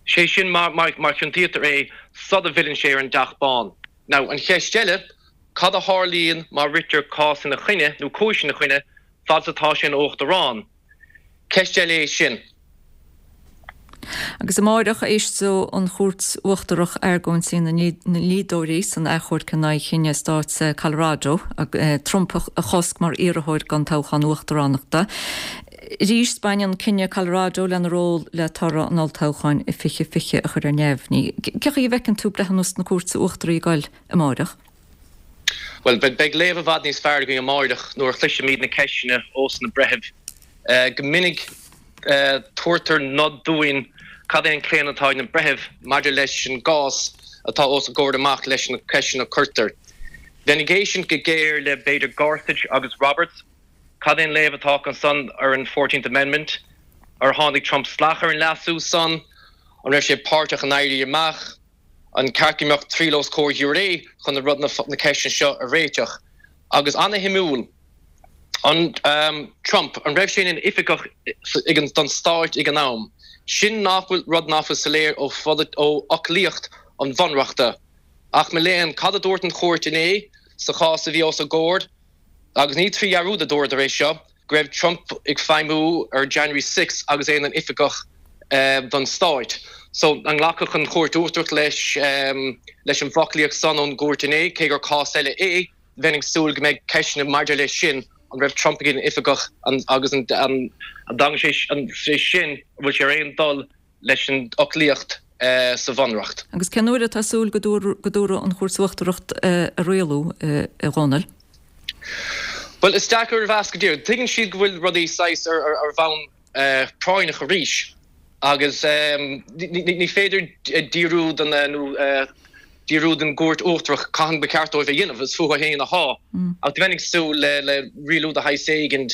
S17: Sé sin má chiontaítear é sula bhfilleann sé ar an dTeach Bán. Now, an cheist eile, cad a tharlaíonn má ritear cás ina choinne, nó cúis ina choinne, fad is atá sé ina Uachtarán? Ceist eile é sin.
S1: Agus amáireach, éisteoidh an Chúirt Uachtarach argóintí na ndlíodóirí san achomharc in aghaidh chinneadh stáit Colorado Trump a chosc mar iarrthóir don toghchán uachtaránachta. Arís, baineann cinneadh Colorado lena ról le toradh an olltoghcháin i 2020 a chur ar neamhní. Cén chaoi a bhfeiceann tú breithiúnas na Cúirte Uachtaraí ag goil amáireach?
S17: Bhuel, beidh léamh i bhfad níos fearr againn amáireach nuair a chloisfimid na ceisteanna ós na breithimh. Go minic tabhartar nod dúinn cad é an claonadh atá ag na breithimh maidir leis an gcás atá os a gcomhair amach leis na ceisteanna a cuirtear. Bheinn ag éisteacht go géar le b'fhéidir Gorsuch agus Roberts. Cad é an léamh atá acu san ar an Fourteenth Amendment? Ar tháinig Trump salach ar an leasú san? An raibh sé páirteach in éirí amach? An ceart go mbeadh triail os comhair ghiúiré chun na rud na ceisteanna seo a réiteach? Agus ana-shuimiúil, an Trump, an raibh sé ina oifigeach ag an don stáit ag an am? Sin nach bhfuil rud nach bhfuil soiléir ó ó fhoclaíocht an Bhunreachta. Ach mo léan, cad a dúirt an chúirt inné sa chás a bhí os a gcomhair? Agus ní trí dhearúd a dúradar é seo, go raibh Trump ag feidhmiú ar January 6 agus é ina oifigeach don stáit. So, an nglacfadh an Chúirt Uachtarach leis leis an bhfoclaíocht san ón gcúirt inné, cé gur cás eile é, bheinn ag súil go mbeidh ceisteanna maidir leis sin, an raibh Trump ina oifigeach agus an dtagann sé sin, an bhfuil sé ar aon dul leis an fhoclaíocht sa Bhunreacht.
S1: Agus cén uair atá súil go dtabharfaidh an Chúirt Uachtarach a rialú, a Dhónaill?
S17: Bhuel, is deacair a mheas go díreach. Tuigeann siad go bhfuil rudaí saghas ar bhonn práinneach arís agus ní féidir díriú don nó díriú don gCúirt Uachtarach cathain ba cheart dóibh a dhéanamh, is fúthu féin atá. Ach bheinn ag súil le rialú de shaghas éigin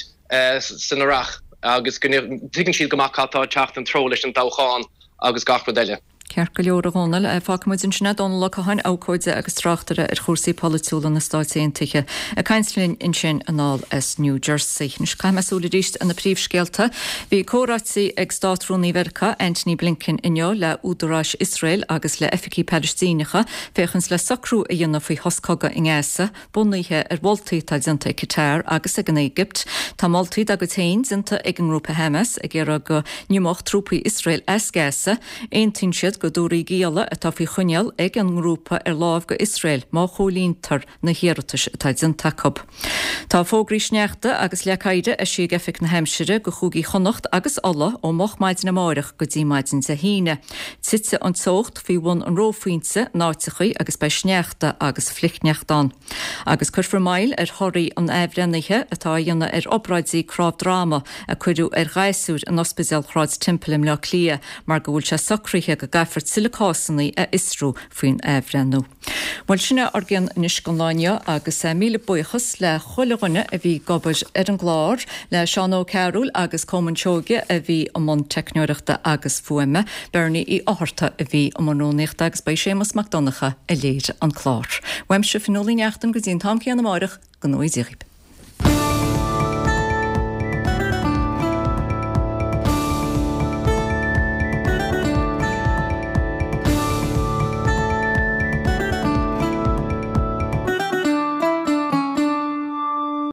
S17: san earrach agus go dtuigeann siad go maith cad tá ag teacht ina dtreo leis an dtoghchán agus gach rud eile.
S1: Ceart go leor, a Dhónaill. Fágfaidh muid ansin é. Dónall Ó Catháin, abhcóide agus tráchtaire ar chúrsaí polaitiúla na Stáit Aontaithe, ag caint linn ansin anall as New Jersey. Anois caithfidh mé súil arís ar na príomhscéalta. Bhí comhráití ag Státrúnaí Mheiriceá, Antony Blinken inniu le údaráis Iosrael agus le oifigigh Palaistíneacha féachaint le socrú a dhéanamh faoi shos cogaidh i nGaza. Bunaithe ar mholtaí atá déanta ag Qatar agus ag an Éigipt, tá moltaí dá gcuid féin déanta ag an ngrúpa Hamas ag iarraidh go n-imeodh trúpaí Iosrael as Gaza. Aontaíonn siad go dtabharfaí gialla atá faoi choinneáil ag an ngrúpa ar láimh go Iosrael má chomhlíontar na hiarratais atá déanta acu. Tá fógraí sneachta agus leac oighir eisithe ag Oifig na hAimsire go chúigí Chonnacht agus Uladh ó moch maidin amáireach go dtí maidin Dé hAoine. Titfidh an teocht faoi bhun an reophointe in áiteachaí agus beidh sneachta agus flichshneachta ann. Agus cuirfear moill ar thorthaí an athbhreithnithe atá á dhéanamh ar obráidí cnámh droma a cuireadh ar ghasúir in Ospidéal Shráid Temple i mBleá Cliath mar go bhfuil sé socraithe go gcaithfear tuilleadh cásanna a fhiosrú faoin athbhreithniú. Bhuel, sin é ár gcion anois don lá inniu agus míle buíochas le chuile dhuine a bhí ag obair ar an gclár, le Seán Ó Cearúil agus Colmán Seoige a bhí i mbun teicneoireachta agus fuaime, Bernie Uí Fhátharta a bhí i mbun rúnaíochta agus ba é Séamus Mac Donncha a léirigh an clár. Uaimse, Fionnuala Ní Neachtain, go dtí an t-am céanna amáireach, go ngnóthaí Dia dhaoibh.